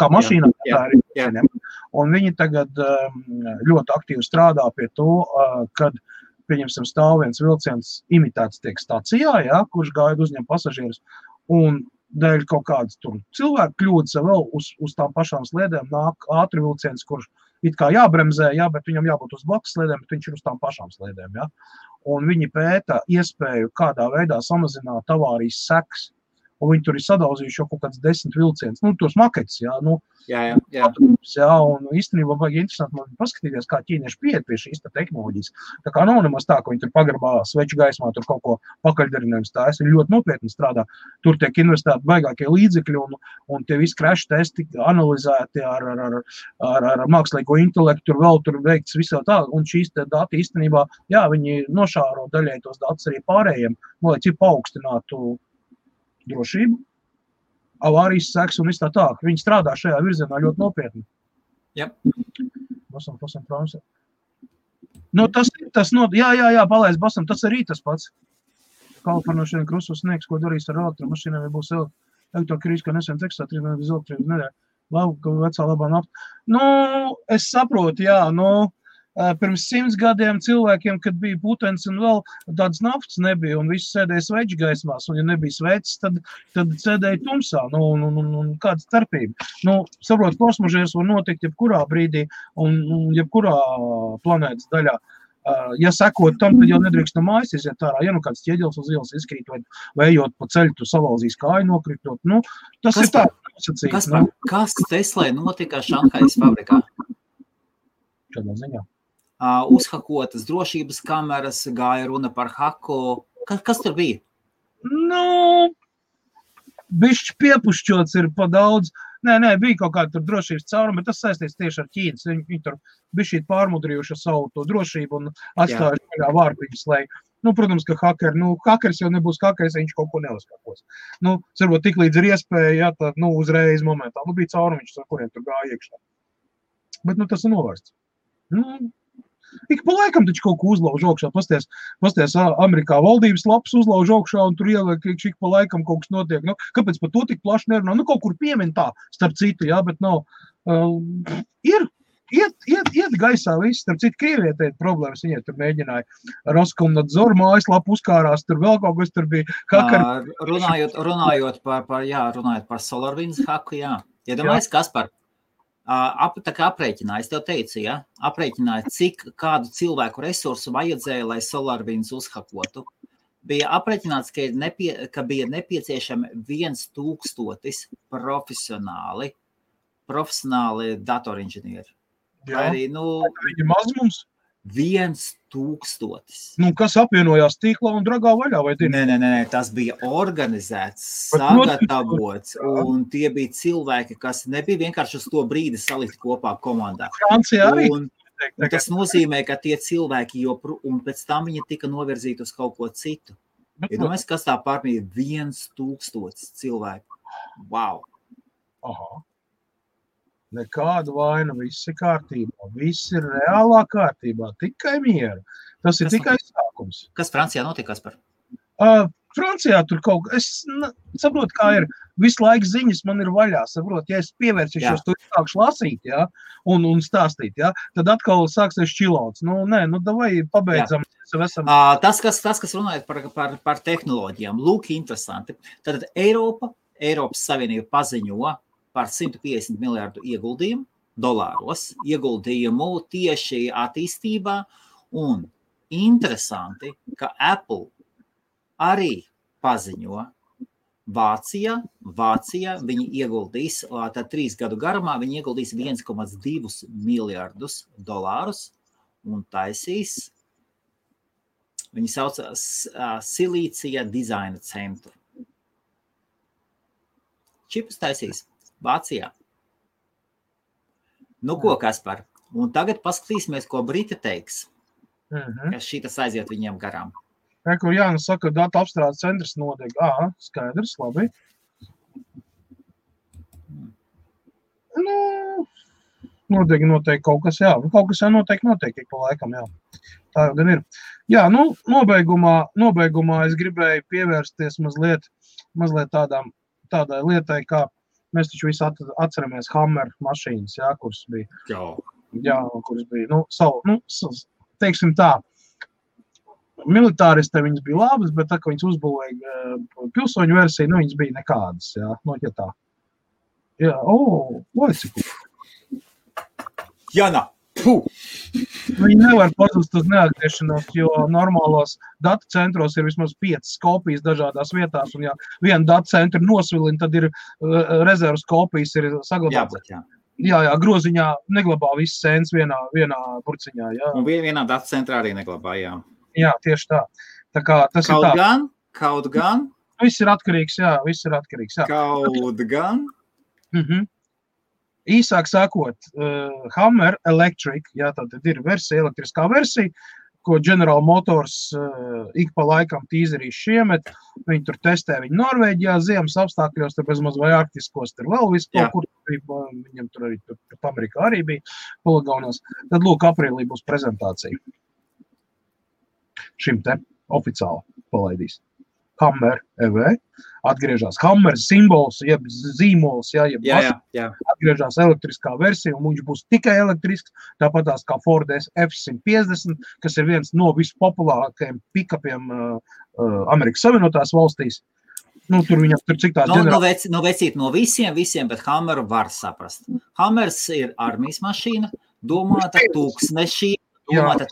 kā mašīnā, tā arī ķēniem. Un viņi tagad ļoti aktīvi strādā pie to, kad pieņemsim, stāv viens vilciens imitēts tiek stacijā, jā, kurš gaida uzņem pasažierus, un dēļ kaut kādas tur cilvēku kļūdas vēl uz tām pašām sliedēm nāk ātri vilciens, kurš it kā jābremzē, jā, bet viņam jābūt uz blakus sliedēm, bet viņš ir uz tām pašām sliedēm, jā. Un viņi pēta iespēju, kādā veidā samazināt avārijas sekas, un viņi tur ir sadauzījuši jau kaut kāds 10 vilciens, nu, tos maketus, jā, nu, Jā. jā, un īstenībā vajag interesanti man paskatīties, kā ķīnieši pieiet pie šīs tehnoloģijas. Tā kā nav nemaz tā, ka viņi tur pagrabā sveču gaismā, tur kaut ko pakaļdarinājums stājas, ir ļoti nopietni strādā. Tur tiek investēti baigākie līdzekļi, un tie visi crash testi analizēti ar mākslīgo intelektu, tur veikts visā tā, un šīs dati īstenībā, jā, viņi nošāro daļai tos datus arī pārējiem, lai cik paaugstinātu drošību, avārijas sekas un viss tā. Viņi strādā šajā virzienā ļoti nopietni. Jā. Basam, prāmsē. Nu, jā, palaist basam, tas arī tas pats. Kalifornošana krusos sniegs, ko darīs ar elektromašīnām, ja būs elektrokrīze, kā nesen Teksasā, 3 mēnešus elektrības nedēļa. Labi, vecā labā nafta. Nu, es saprotu, jā, pirms 100 gadiem cilvēkiem, kad bija putens un vēl tādas naftas nebija, un visi sēdēja sveču gaismās, un ja nebija sveces, tad sēdēja tumsā, un kāda starpība. Saprot, kosmožērs var notikt jebkurā brīdī un jebkurā planētas daļā. Ja sekot tam, tad jau nedrīkst no mājas iziet ārā, ja kāds ķieģels uz ielas izkrīt, vai ejot pa ceļu, tu salauzīs kāju nokritot. Tas ir tā nosacīts. Kas Teslai notika Šanhajas fabrikā? Šādā ziņā. Uzhakotas drošības kameras, gāja runa par haku. Kas tur bija? Bišķi piepušķots ir pa daudz. Nē, bija kaut kāda tur drošības cauruma, bet tas saistīts tieši ar Ķīnas. Viņi tur bišķīt pārmudrījuši savu to drošību un atstājuši vaļā vārpiņus, lai, protams, ka hakeris jau nebūs hakeris, viņš kaut ko neuzkakos. Varbūt tik līdz ir iespēja, jā, tā, uzreiz momentā. Bija caurumiņš, ar kuriem tur gāja iekšā. Bet, tas ir novērsts. Ik pa laikam taču kaut ko uzlauž augšā, pasties Amerikā valdības lapas uzlauž augšā un tur ieliek, ik pa laikam kaut kas notiek. Kāpēc par to tik plaši nerunā? Kaut kur piemin tā, starp citu, jā, bet nav. Iet gaisā viss, starp citu, Krievietē ir problēmas, viņai tur mēģināja Roskomnadzor mājaslapu uzkārās, tur vēl kaut kas tur bija. Runājot par SolarWinds haku, jā. Iedomājies, Kaspar? Tā kā aprēķināja, es tev teicu, ja? Aprēķināja, kādu cilvēku resursu vajadzēja, lai SolarWinds uzhakotu. Bija aprēķināts, ka bija nepieciešami 1000 profesionāli datorinženieri. Jā, arī, viņi maz mums? 1000. Kas apvienojās tīklā un dragā vaļā, vai tie? Nē, tas bija organizēts, sagatavots, un tie bija cilvēki, kas nebija vienkārši uz to brīdi salikt kopā komandā. Francijā arī. Un tas nozīmē, ka tie cilvēki un pēc tam viņi tika novirzīti uz kaut ko citu. Iedomājies, kas tā pārmīja 1000 cilvēku. Wow! Aha. Nekāda vaina, viss ir kārtībā, viss ir reālā kārtībā, tikai miera. Tas ir tikai sākums. Kas Francijā notika, Kaspar? Francijā tur kaut kas, es saprotu, kā ir, visu laiku ziņas man ir vaļā, saprotu, ja es pievērsīšos, tur sākšu lasīt, jā, un stāstīt, jā, tad atkal sāksies čilauts. Davai pabeidzam. Tas, kas runājot par tehnoloģijām, lūk, interesanti. Tad Eiropas Savienība paziņo par 150 miljārdu ieguldījumu tieši attīstībā, un interesanti, ka Apple arī paziņo Vācijā viņi ieguldīs, tad 3 gadu garumā viņi ieguldīs 1,2 miljārdus dolārus un taisīs, viņi sauc Silīcija dizaina centru. Čipus taisīs Vācijā. Ko, Kaspar? Un tagad paskatīsimies, ko Briti teiks, ka šitas aiziet viņiem garām. Kur Jānis saka, datu apstrādes centrs nodeg. Skaidrs, labi. Nodeg noteikti kaut kas, jā. Kaut kas jau noteikti pa laikam, jā. Tā jau gan ir. Jā, nobeigumā es gribēju pievērsties mazliet tādai lietai, kā mēs taču visi atceramies Hammer mašīnas, jā, kuras bija. Jā, kuras bija, teiksim tā, militāristē viņas bija labas, bet tā, ka viņas uzbūvēja pilsoņu versiju, nu, viņas bija nekādas, jā, no ja tā. Jā, cik. Jana, puh! Viņi nevar pazust uz neatgriešanos, jo normālos datu centros ir vismaz 5 kopijas dažādās vietās, un ja viena datu centra nosvilina, tad ir rezervas kopijas ir saglabātas. Jā, groziņā neglabā visas sēnes vienā burciņā, jā. Un vienā datu centrā arī neglabā, jā. Jā, tieši tā. Tā kā tas kaut ir tā. Kaut gan. Viss ir atkarīgs, jā. Kaut gan. Īsāk sakot, Hummer Electric, jā, tātad ir versija, elektriskā versija, ko General Motors ik pa laikam tīzerīs šiemet. Viņi tur testē viņu Norvēģijā, ziemas apstākļos, tur bezmaz vai arktiskos, tur vēl visu kaut kur, viņam tur arī tur Amerikā arī bija poligonos. Tad lūk, aprīlī būs prezentācija. Šim te oficiāli palaidīs. Hummer EV, atgriežās Hummer simbols, jeb zīmols, jeb atgriežās elektriskā versija, un viņš būs tikai elektrisks, tāpatās kā Ford F-150, kas ir viens no vispopulārākajiem pikapiem Amerikas Savienotās valstīs. Nu, tur viņam tur cik tās vecīt no visiem, bet Hummeru var saprast. Hummers ir armijas mašīna, domāta tūkstnešiem. Hummers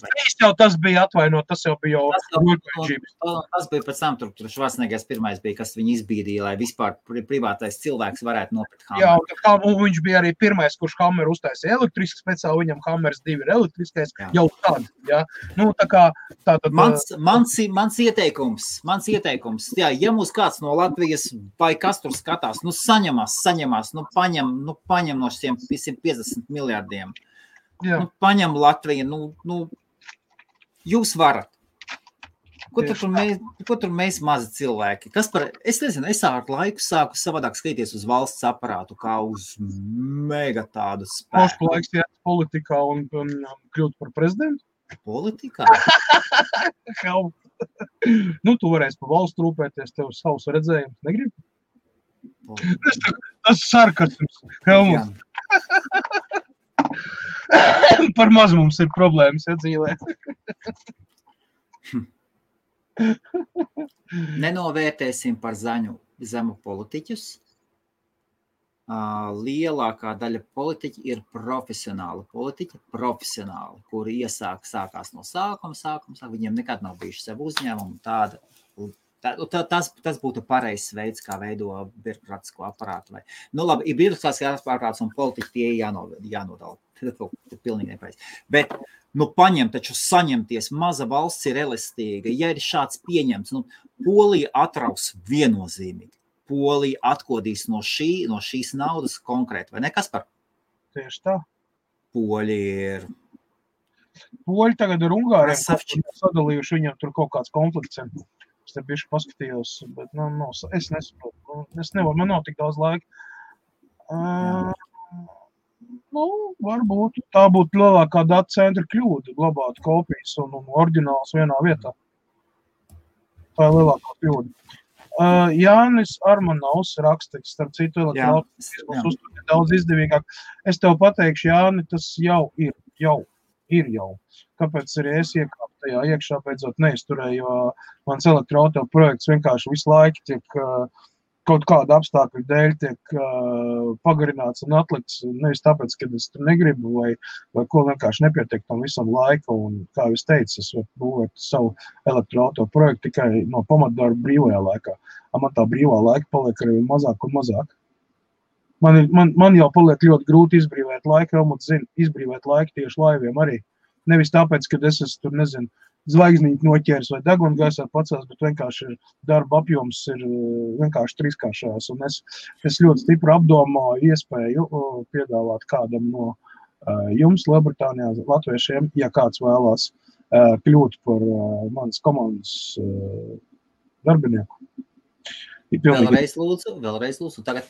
3 jau tas bija atvainot, tas jau bija Tas bija pēc tam, tur Švarcnegers pirmais bija, kas viņu izbīdīja, lai vispār privātais cilvēks varētu nopirkt Hummer. Jā, un viņš bija arī pirmais, kurš Hummer uztaisīja elektrisks, speciāli viņam Hummers 2 ir elektriskais, jau tad, jā. Nu, tā kā tātad... Mans ieteikums, jā, ja mūs kāds no Latvijas vai kas tur skatās, nu saņemās, nu paņem no šiem 150 miljardiem. Nu, paņem Latviju, nu, jūs varat. Ko tur mēs mazi cilvēki? Es nezinu, es ar laiku sāku savādāk skatīties uz valsts aparātu, kā uz mega tādu spēku. Mošku laiks iet politikā un kļūt par prezidentu? Politikā? Nu, tu varēsi pa valstu rūpēties, tev savus redzējumus, negribi? Tas sarkasms, Helmuts. Par maz mums ir problēmas, ja dzīvē. Nenovērtēsim par zemu politiķus. Lielākā daļa politiķi ir profesionāli politiķi, kuri sākās no sākuma, viņiem nekad nav bijuši sev uzņēmumu tāda. Tas būtu pareizs veids, kā veido birokrātisko aparātu. Nu labi, ir birokrātiskās aparāts un politiķi tie jānodala. Tas ir pilnīgi nepareizi. Bet, nu taču saņemties, maza valsts ir elastīga. Ja ir šāds pieņemts, nu, Polija atraus viennozīmīgi. Polija atkodīs no šīs naudas konkrēti, vai ne, Kaspar? Tieši tā. Poļi tagad ar Ungāriem sadalījuši, viņam tur kaut kāds konflikts. Es te bišķi paskatījos, bet es nesaprotu. Es nevaru, man nav tik daudz laika. Varbūt tā būtu lielākā data centra kļūda, glabāt kopijas un oriģināls vienā vietā. Tā ir lielākā kļūda. Jānis Armanovs raksta, starp citu elektroautomatismus uzturēt daudz izdevīgāk. Es tev pateikšu, Jāni, tas jau ir. Kāpēc arī es iekāpu tajā iekšā beidzot neizturēju, jo mans elektroauto projekts vienkārši visu laiku tiek kaut kāda apstākļu dēļ tiek pagarināts un atlikts, nevis tāpēc, ka es tur negribu vai ko vienkārši nepietiek tam visam laika. Un, kā es teicu, es varu būvēt savu elektroauto projektu tikai no pamatdarba brīvajā laikā. Man tā brīvā laika paliek arī mazāk un mazāk. Man jau paliek ļoti grūti izbrīvēt laiku, Helmuts zina, izbrīvēt laiku tieši laiviem arī. Nevis tāpēc, ka es esmu tur, nezinu, zvaigznīti noķēris vai degunu gaisā pacels, bet vienkārši darba apjoms ir vienkārši trīskāršās. Un es ļoti stipri apdomāju iespēju piedāvāt kādam no jums Lielbritānijā, latviešiem, ja kāds vēlās kļūt par manas komandas darbinieku. Vēlreiz lūdzu, tagad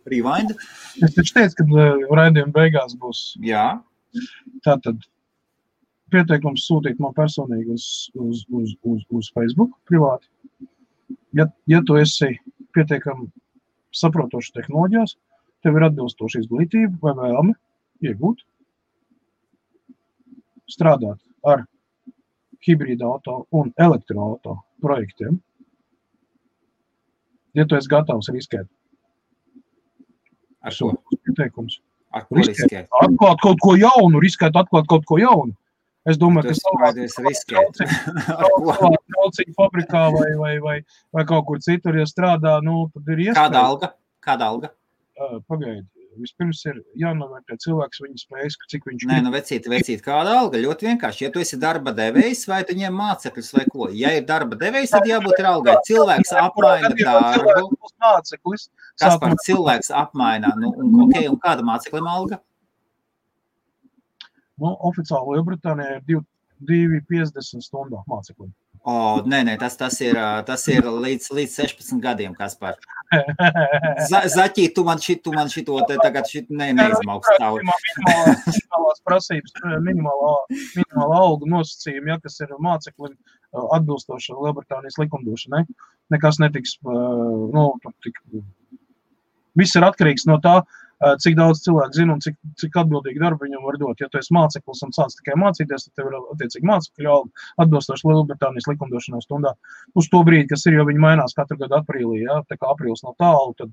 rewind. Es taču teicu, ka raidījuma beigās būs. Jā. Tātad pieteikums sūtīt man personīgi uz Facebook privāti. Ja tu esi pietiekami saprotošs tehnoloģijās, tev ir atbilstoša izglītība vai vēlme iegūt. strādāt ar hibrīda auto un elektroauto projektiem, ja tu esi gatavs riskēt. Ar ko? Pieteikums. Ar ko riskēt? Atklāt kaut ko jaunu, riskēt atklāt kaut ko jaunu. Es domāju, ka trauciņu fabrikā vai kaut kur citur, ja strādā, tad ir iespēja. Kāda alga? Pagaidi. Vispirms ir jānovērtē cilvēks viņa spējas, cik viņš Nē, vecīt, kāda alga? Ļoti vienkārši. Ja tu esi darba devējs, vai tu ņem mācekļus vai ko? Ja ir darba devējs, tad jābūt ir algai. Cilvēks apmaina darbu. Kas par cilvēks apmaina? Un kāda mācekļiem alga? Oficiāli Lielbritānijā ir 2,50 stundā mācekļiem. Nē, tas ir līdz 16 gadiem, Kaspar. Zaķī, tu man šito te tagad neizmauks tauri. Minimālās prasības, minimāla algu nosacījumi, kas ir mācekļiem atbilstoši Lielbritānijas likumdošanai. Nekas netiks, viss ir atkarīgs no tā, cik daudz cilvēku zina un cik atbildīgi darbu viņam var dot. Ja tu esi māceklis un sāc tikai mācīties, tad tev ir attiecīgi mācekļu alga atbilstoši Lielbritānijas likumdošanai stundā. Uz to brīdi, kas ir, jo viņi mainās katru gadu aprīlī, tā kā aprīlis nav tālu, tad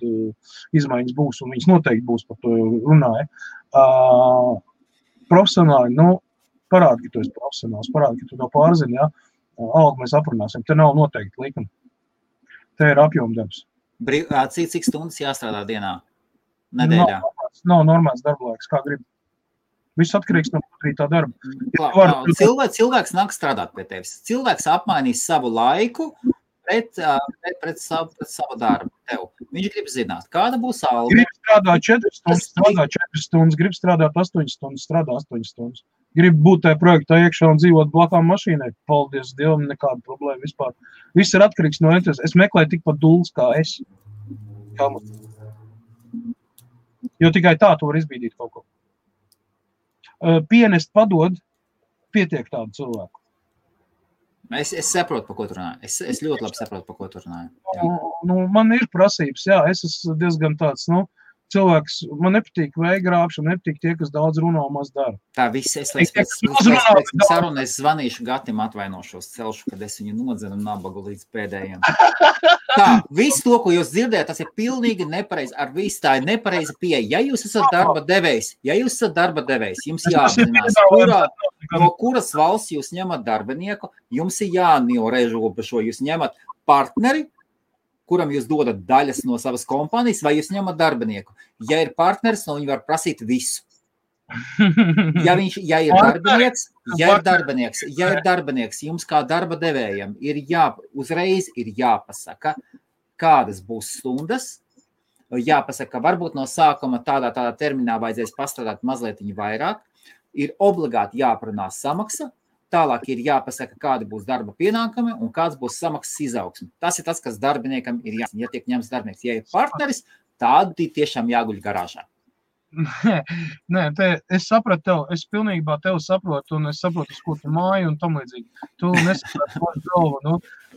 izmaiņas būs un viņas noteikti būs, par to runāja. Profesionāli, parādi, ka tu esi profesionāls, parādi, ka tu to pārzini, algu mēs aprunāsim, te nav noteikti likumi. Te ir apjomdarbs. Cik stundas jāstrādā dienā? Nedēļā. Nav normāls darba laiks, kā grib. Viss atkarīgs no tā darba. Cilvēks nāk strādāt pie tevis. Cilvēks apmainīs savu laiku pret savu darbu tev. Viņš grib zināt, kāda būs alga. Grib strādāt 4 stundas, grib strādāt 8 stundas, strādā 8 stundas. Grib būt tajā projektā iekšā un dzīvot blakām mašīnai. Paldies Dievam, nekāda problēma vispār. Viss ir atkarīgs no entuziasma. Es meklēju tikpat dulls kā es. Jo tikai tā tu var izbīdīt kaut ko. Pienest padod, pietiek tādu cilvēku. Es saprotu, pa ko tu runāji. Es ļoti labi saprotu, pa ko tu runāji. Man ir prasības, es esmu diezgan tāds, cilvēks, man nepatīk veigrāpšana, nepatīk tie, kas daudz runā un maz dara. Tā viss, es zvanīšu Gatim, atvainošos, celšu, kad es viņu nodzenu nabagu līdz pēdējiem. Tā, viss to, ko jūs dzirdējat, tas ir pilnīgi nepareizi, ar visu tā ir nepareiza pieeja. Ja jūs esat darba devējs, jums jāapzinās, no kuras valsts jūs ņemat darbinieku, jums ir jānorežobežo, jūs ņemat partneri, kuram jūs dodat daļas no savas kompānijas, vai jūs ņemat darbinieku. Ja ir partneris, no viņi var prasīt visu. Ja ir darbinieks, jums kā darba devējam uzreiz ir jāpasaka, kādas būs stundas, jāpasaka, varbūt no sākuma tādā terminā vajadzēs pastrādāt mazliet vairāk, ir obligāti jāprunā samaksa, tālāk ir jāpasaka, kādi būs darba pienākumi un kāds būs samaksas izaugsme. Tas ir tas, kas darbiniekam ir jāsaka. Ja tiek ņemts darbinieks, ja ir partneris, tādi tiešām jāguļ garāžā. Nē, es sapratu tev, es pilnībā tev saprotu, un es saprotu, uz ko tu māju un tam līdzīgi. Tu nesapratu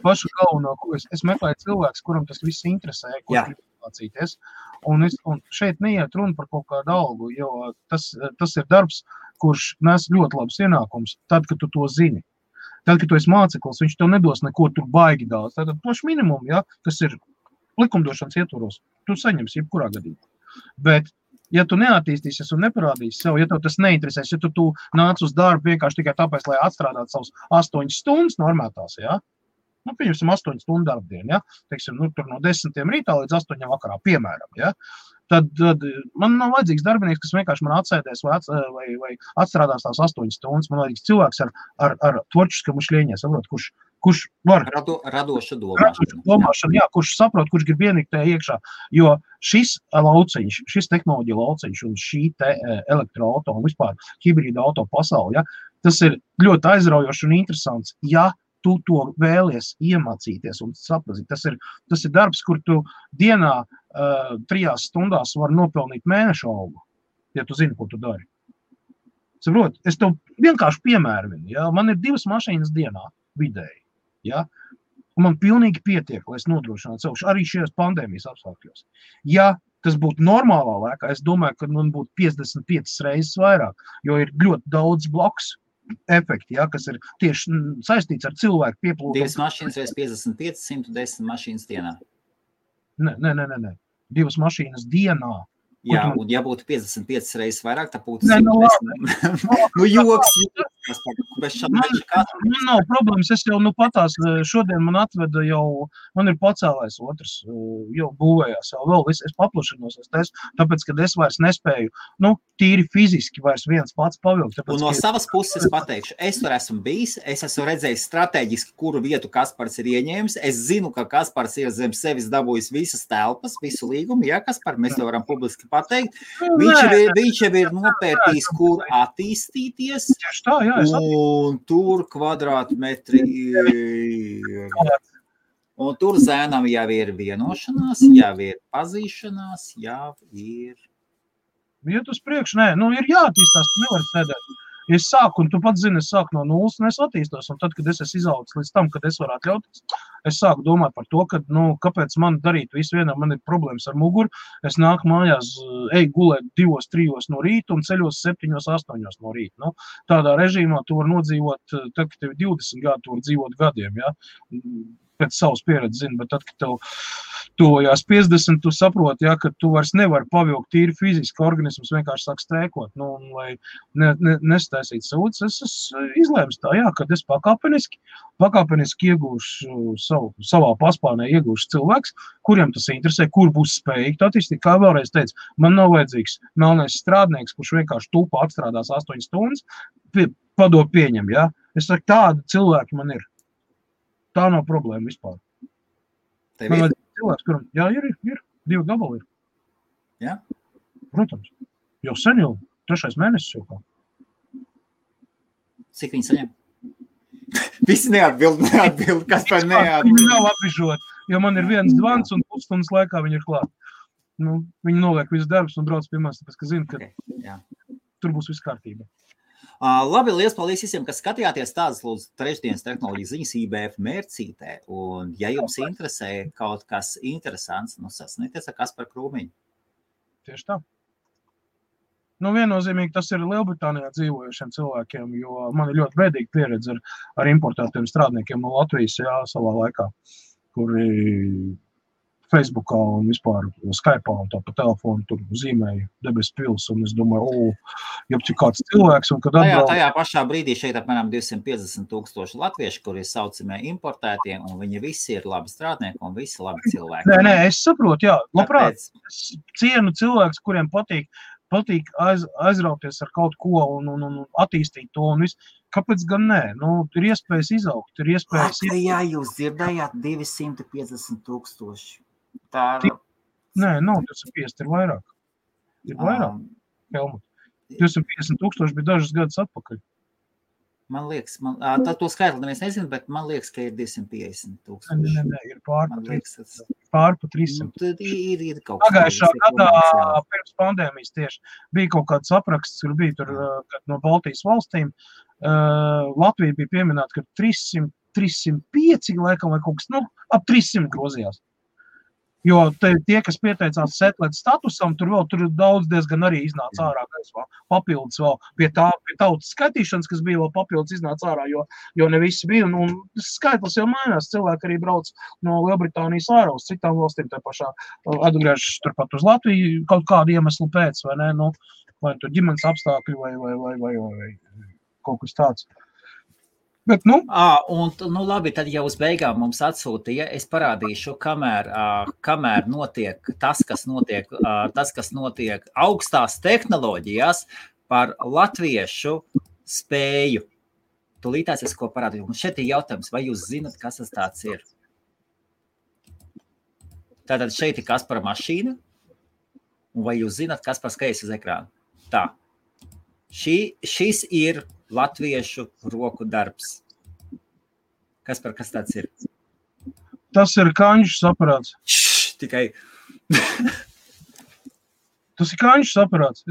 pašu galveno, ko es meklēju cilvēks, kuram tas viss interesē, ko grib mācīties. Un šeit neiet runa par kaut kādu algu, jo tas ir darbs, kurš nes ļoti labs ienākums, tad, kad tu to zini. Tad, kad tu esi māceklis, viņš tev nedos neko tur baigi daudz. Tātad plašs minimum, kas ir likumdošanas ietvaros, tu saņemsi jebkurā gadījumā. Bet, ja tu neattīstīsies un neparādīsi sev, ja tev tas neinteresēs, ja tu nāc uz darbu vienkārši tikai tāpēc, lai atstrādātu savus 8 stundas normētās, pieņemsim 8 stundu darbdienu, teiksim, tur no 10 rītā līdz 8 vakarā, piemēram, tad man nav vajadzīgs darbinieks, kas vienkārši man atsēdēs vai atstrādās tās 8 stundas. Man vajadzīgs cilvēks ar tvorčiskam ušļieņē, saprot, kurš var... Radoša domāšana. Kurš saprot, kurš grib ienikt tajā iekšā. Jo šis lauciņš, šis tehnoloģija lauciņš un šī te elektroauto un vispār hibrīda auto pasauli, tas ir ļoti aizraujoši un interesants, tu to vēlies iemācīties un saprazīt. Tas ir darbs, kur tu dienā 3 stundās var nopelnīt mēnešu algu, ja tu zini, ko tu dari. Saprot, es tev vienkārši piemēru, man ir 2 mašīnas dienā vidēji, un man pilnīgi pietiek, lai es nodrošinātu sev, arī šajās pandēmijas apstākļos. Ja tas būtu normālā laikā, es domāju, ka man būtu 55 reizes vairāk, jo ir ļoti daudz bloks, efekti, ja, kas ir tieši saistīts ar cilvēku pieplūdumu. 2 mašīnas reiz 55, 110 mašīnas dienā. Nē. 2 mašīnas dienā. Jā, un ja būtu 55 reizes vairāk, tad būtu Nē, 110. Joks. Man nav problēmas, es jau patās, šodien man atveda jau, man ir pacēlājs otrs, jau būvējās, jau vēl es paplašinos, tāpēc, kad es vairs nespēju, tīri fiziski vairs viens pats pavilkt. Un no savas puses pateikšu, es tur esmu bijis, es esmu redzējis strateģiski, kuru vietu Kaspars ir ieņēmis, es zinu, ka Kaspars ir zem sevis dabūjis visas telpas, visu līgumu, ja, Kaspar, mēs to varam publiski pateikt. Viņš jau ir nopērtījis, kur attīstīties, tā, jā, un tur kvadrātmetri ir. Un tur zēnam jau ir vienošanās, jau ir pazīšanās, jau ir. Iet uz priekšu, nē, ir jāattīstās, tu nevari sēdēt. Es sāku, un tu pats zini, es sāku no nulles, un es attīstos, un tad, kad es esmu izaudzis līdz tam, kad es varu atļauties, es sāku domāt par to, ka, kāpēc man darīt visu vienam, man ir problēmas ar muguru, es nāku mājās, gulēt 2-3 no rīta un ceļos 7-8 no rīta. Tādā režīmā tu var nodzīvot, tad, kad tev 20 gadi, tu var dzīvot gadiem, ja? Pēc savas pieredzes zini, bet tad, kad tev tojās 50, tu saproti, ja, ka tu vairs nevari pavilkt tīri fiziski, organisms vienkārši sāk strēkot, un lai nestaisīt sūdz, es izlēmu tā, jā, kad es pakāpeniski iegūšu savā paspārnē iegūšu cilvēks, kuriem tas interesē, kur būs spējīgi attīstīt, kā vēlreiz teicu, man nav vajadzīgs melnais strādnieks, kurš vienkārši tūpa atstrādās 8 stundas, padod pieņem, ja, es saku, tādi cilvēki man ir. Tā nav problēma vispār. Man vajag cilvēks, kuram, jā, ir, 2 gabali ir. Jā? Protams. Jau sen jau, 3. mēnesis jau kā. Cik viņi saņem? Visi neatbild, kas par neatbild. Viņi nav apbižot, jo man ir viens zvans un pusstundas laikā viņi ir klāt. Viņi noliek visu darbus un brauc pie manis, tāpēc, ka zina, ka tur būs viss kārtība. Labi, liels paldies visiem, kas skatījāties tādas lūdzu trešdienas tehnoloģijas ziņas IBF mērcītē. Un, ja jums interesē kaut kas interesants, sasnieties ar Kasparu Krūmiņu. Tieši tā. Viennozīmīgi tas ir Lielbritānijā dzīvojušiem cilvēkiem, jo man ir ļoti bēdīga pieredze ar importētiem strādniekiem no Latvijas, savā laikā, kuri Facebookā un vispār Skype'ā un tā pa telefonu tur zīmēja debes pils, un es domāju, jeb kāds cilvēks, un kad atbrauc... Tajā pašā brīdī šeit apmēram 250,000 latvieši, kuri ir saucamie importētie, un viņi visi ir labi strādnieki un visi labi cilvēki. Nē, es saprotu, jā, labprāt, es cienu cilvēks, kuriem patīk aizrauties ar kaut ko un attīstīt to un visu. Kāpēc gan nē? Ir iespējas izaugt, ir iespējas... Jā, jūs dzirdējāt 250,000. Nē, nav 250, ir vairāk. Ir vairāk, Helmut. 250,000 bija dažas gadus atpakaļ. Man liekas, to skaitli neviens nezinu, bet man liekas, ka ir 250,000. Nē, ir pār pa 300. Tad ir kaut kas. Pagājušā gadā pirms pandēmijas tieši bija kaut kāds apraksts, kur bija tur no Baltijas valstīm. Latvija bija pieminēta, ka 305 laikam vai kaut kas, ap 300 grozījās. Jo tie, kas pieteicās setlēt statusam, tur daudz diezgan arī iznāca ārā, papildus vēl pie tautas skaitīšanas, kas bija vēl papildus iznāca ārā, jo ne visi bija. Un skaitlis jau mainās, cilvēki arī brauc no Lielbritānijas ārā uz citām valstīm, tā pašā atgriežas turpat uz Latviju kaut kādu iemeslu pēc, vai ne, vai tur ģimenes apstākļi vai kaut kas tāds. Bet, labi, tad jau uz beigām mums atsūtīja, es parādīšu, kamēr notiek tas, kas notiek augstās tehnoloģijās par latviešu spēju. Tūlītās es ko parādīju. Un šeit ir jautājums, vai jūs zinat, kas tas tāds ir? Tātad šeit ir Kaspara mašīna, un vai jūs zinat, kas par skaļas uz ekrānu? Tā. Šis ir latviešu roku darbs. Kas tāds ir? Tas ir kaņšs aparāts. Tikai. Tas ir kaņšs aparāts.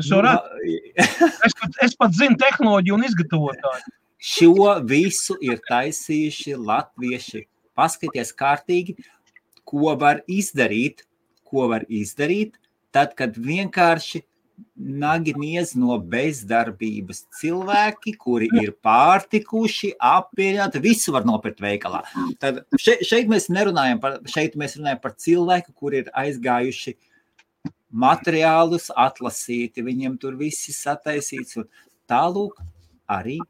Es pat zinu tehnoloģiju un izgatavotāju. Šo visu ir taisījuši latvieši. Paskaties kārtīgi, ko var izdarīt, tad, kad vienkārši naginies no bezdarbības cilvēki, kuri ir pārtikuši, apmierināti, visu var nopirkt veikalā. Tad šeit mēs runājam par cilvēku, kuri ir aizgājuši materiālus atlasīti, viņiem tur visi sataisīts, un tālūk arī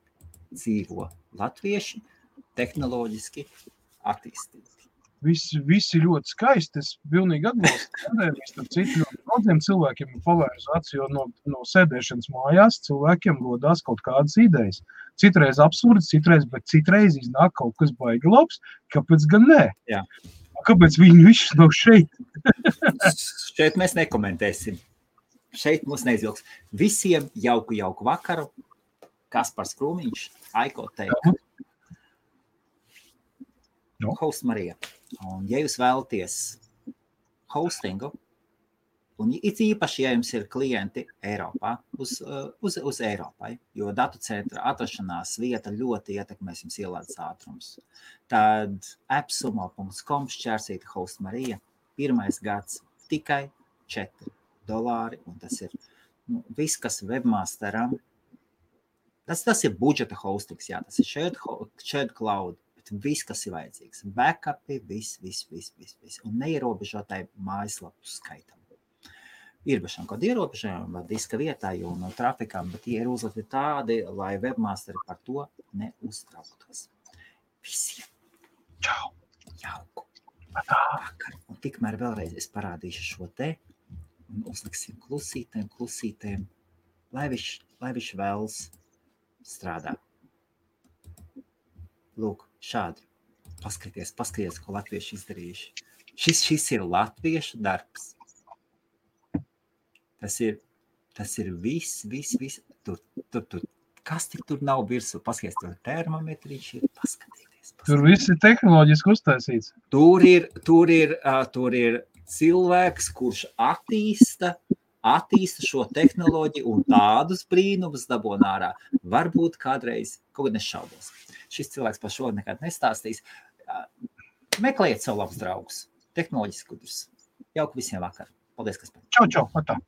dzīvo latvieši tehnoloģiski attīstīti. Visi ļoti skaisti, es pilnīgi atbalstu pandēmijas, tad citu ļoti daudziem cilvēkiem ir pavērs acis, jo no sēdēšanas mājās cilvēkiem rodās kaut kādas idejas. Citreiz absurds, bet citreiz iznāk kaut kas baigi labs, kāpēc gan nē? Jā. Kāpēc viņi višķi nav šeit? Šeit mēs nekomentēsim. Šeit mums neizvilks. Visiem jauku vakaru. Kaspars Krūmiņš, Aiko Teika. Host Marija. Un ja jūs vēlaties hostingu, un īpaši, ja jums ir klienti Eiropā, uz Eiropai, jo datu centra atrašanās vieta ļoti ietekmēs jums ielādes ātrums, tad appsumo.com šķērsīta Host Marija, 1. gads tikai $4, un tas ir viss, kas webmasteram, tas ir budžeta hostings, jā, tas ir shared cloud, viss, kas ir vajadzīgs. Backupi, viss. Un neierobežotai mājaslapu skaitam. Ir bešām kaut ierobežojumi vai diska vietā, jo no trafikām, bet tie ir uzlikti tādi, lai webmasteri par to neuztrauktos. Visiem. Čau. Jauku. Vakar. Un tikmēr vēlreiz es parādīšu šo te un uzliksim klusītēm, lai viņš vēlas strādā. Lūk, šādi. Paskaties, ko latvieši izdarījuši. Šis ir latviešu darbs. Tas ir viss. Tur. Kas tik tur nav virsū? Paskaties, tur termometriņš ir. Paskatieties. Tur viss ir tehnoloģiski uztaisīts. Tur ir cilvēks, kurš attīsta šo tehnoloģiju un tādus brīnumus dabūna ārā. Varbūt kādreiz, kaut kad nešaubos. Šis cilvēks par šo nekad nestāstīs. Meklējiet savu labus draugus. Tehnoloģiski gudrus. Jauku visiem vakar. Paldies, Kaspar. Čau, atā.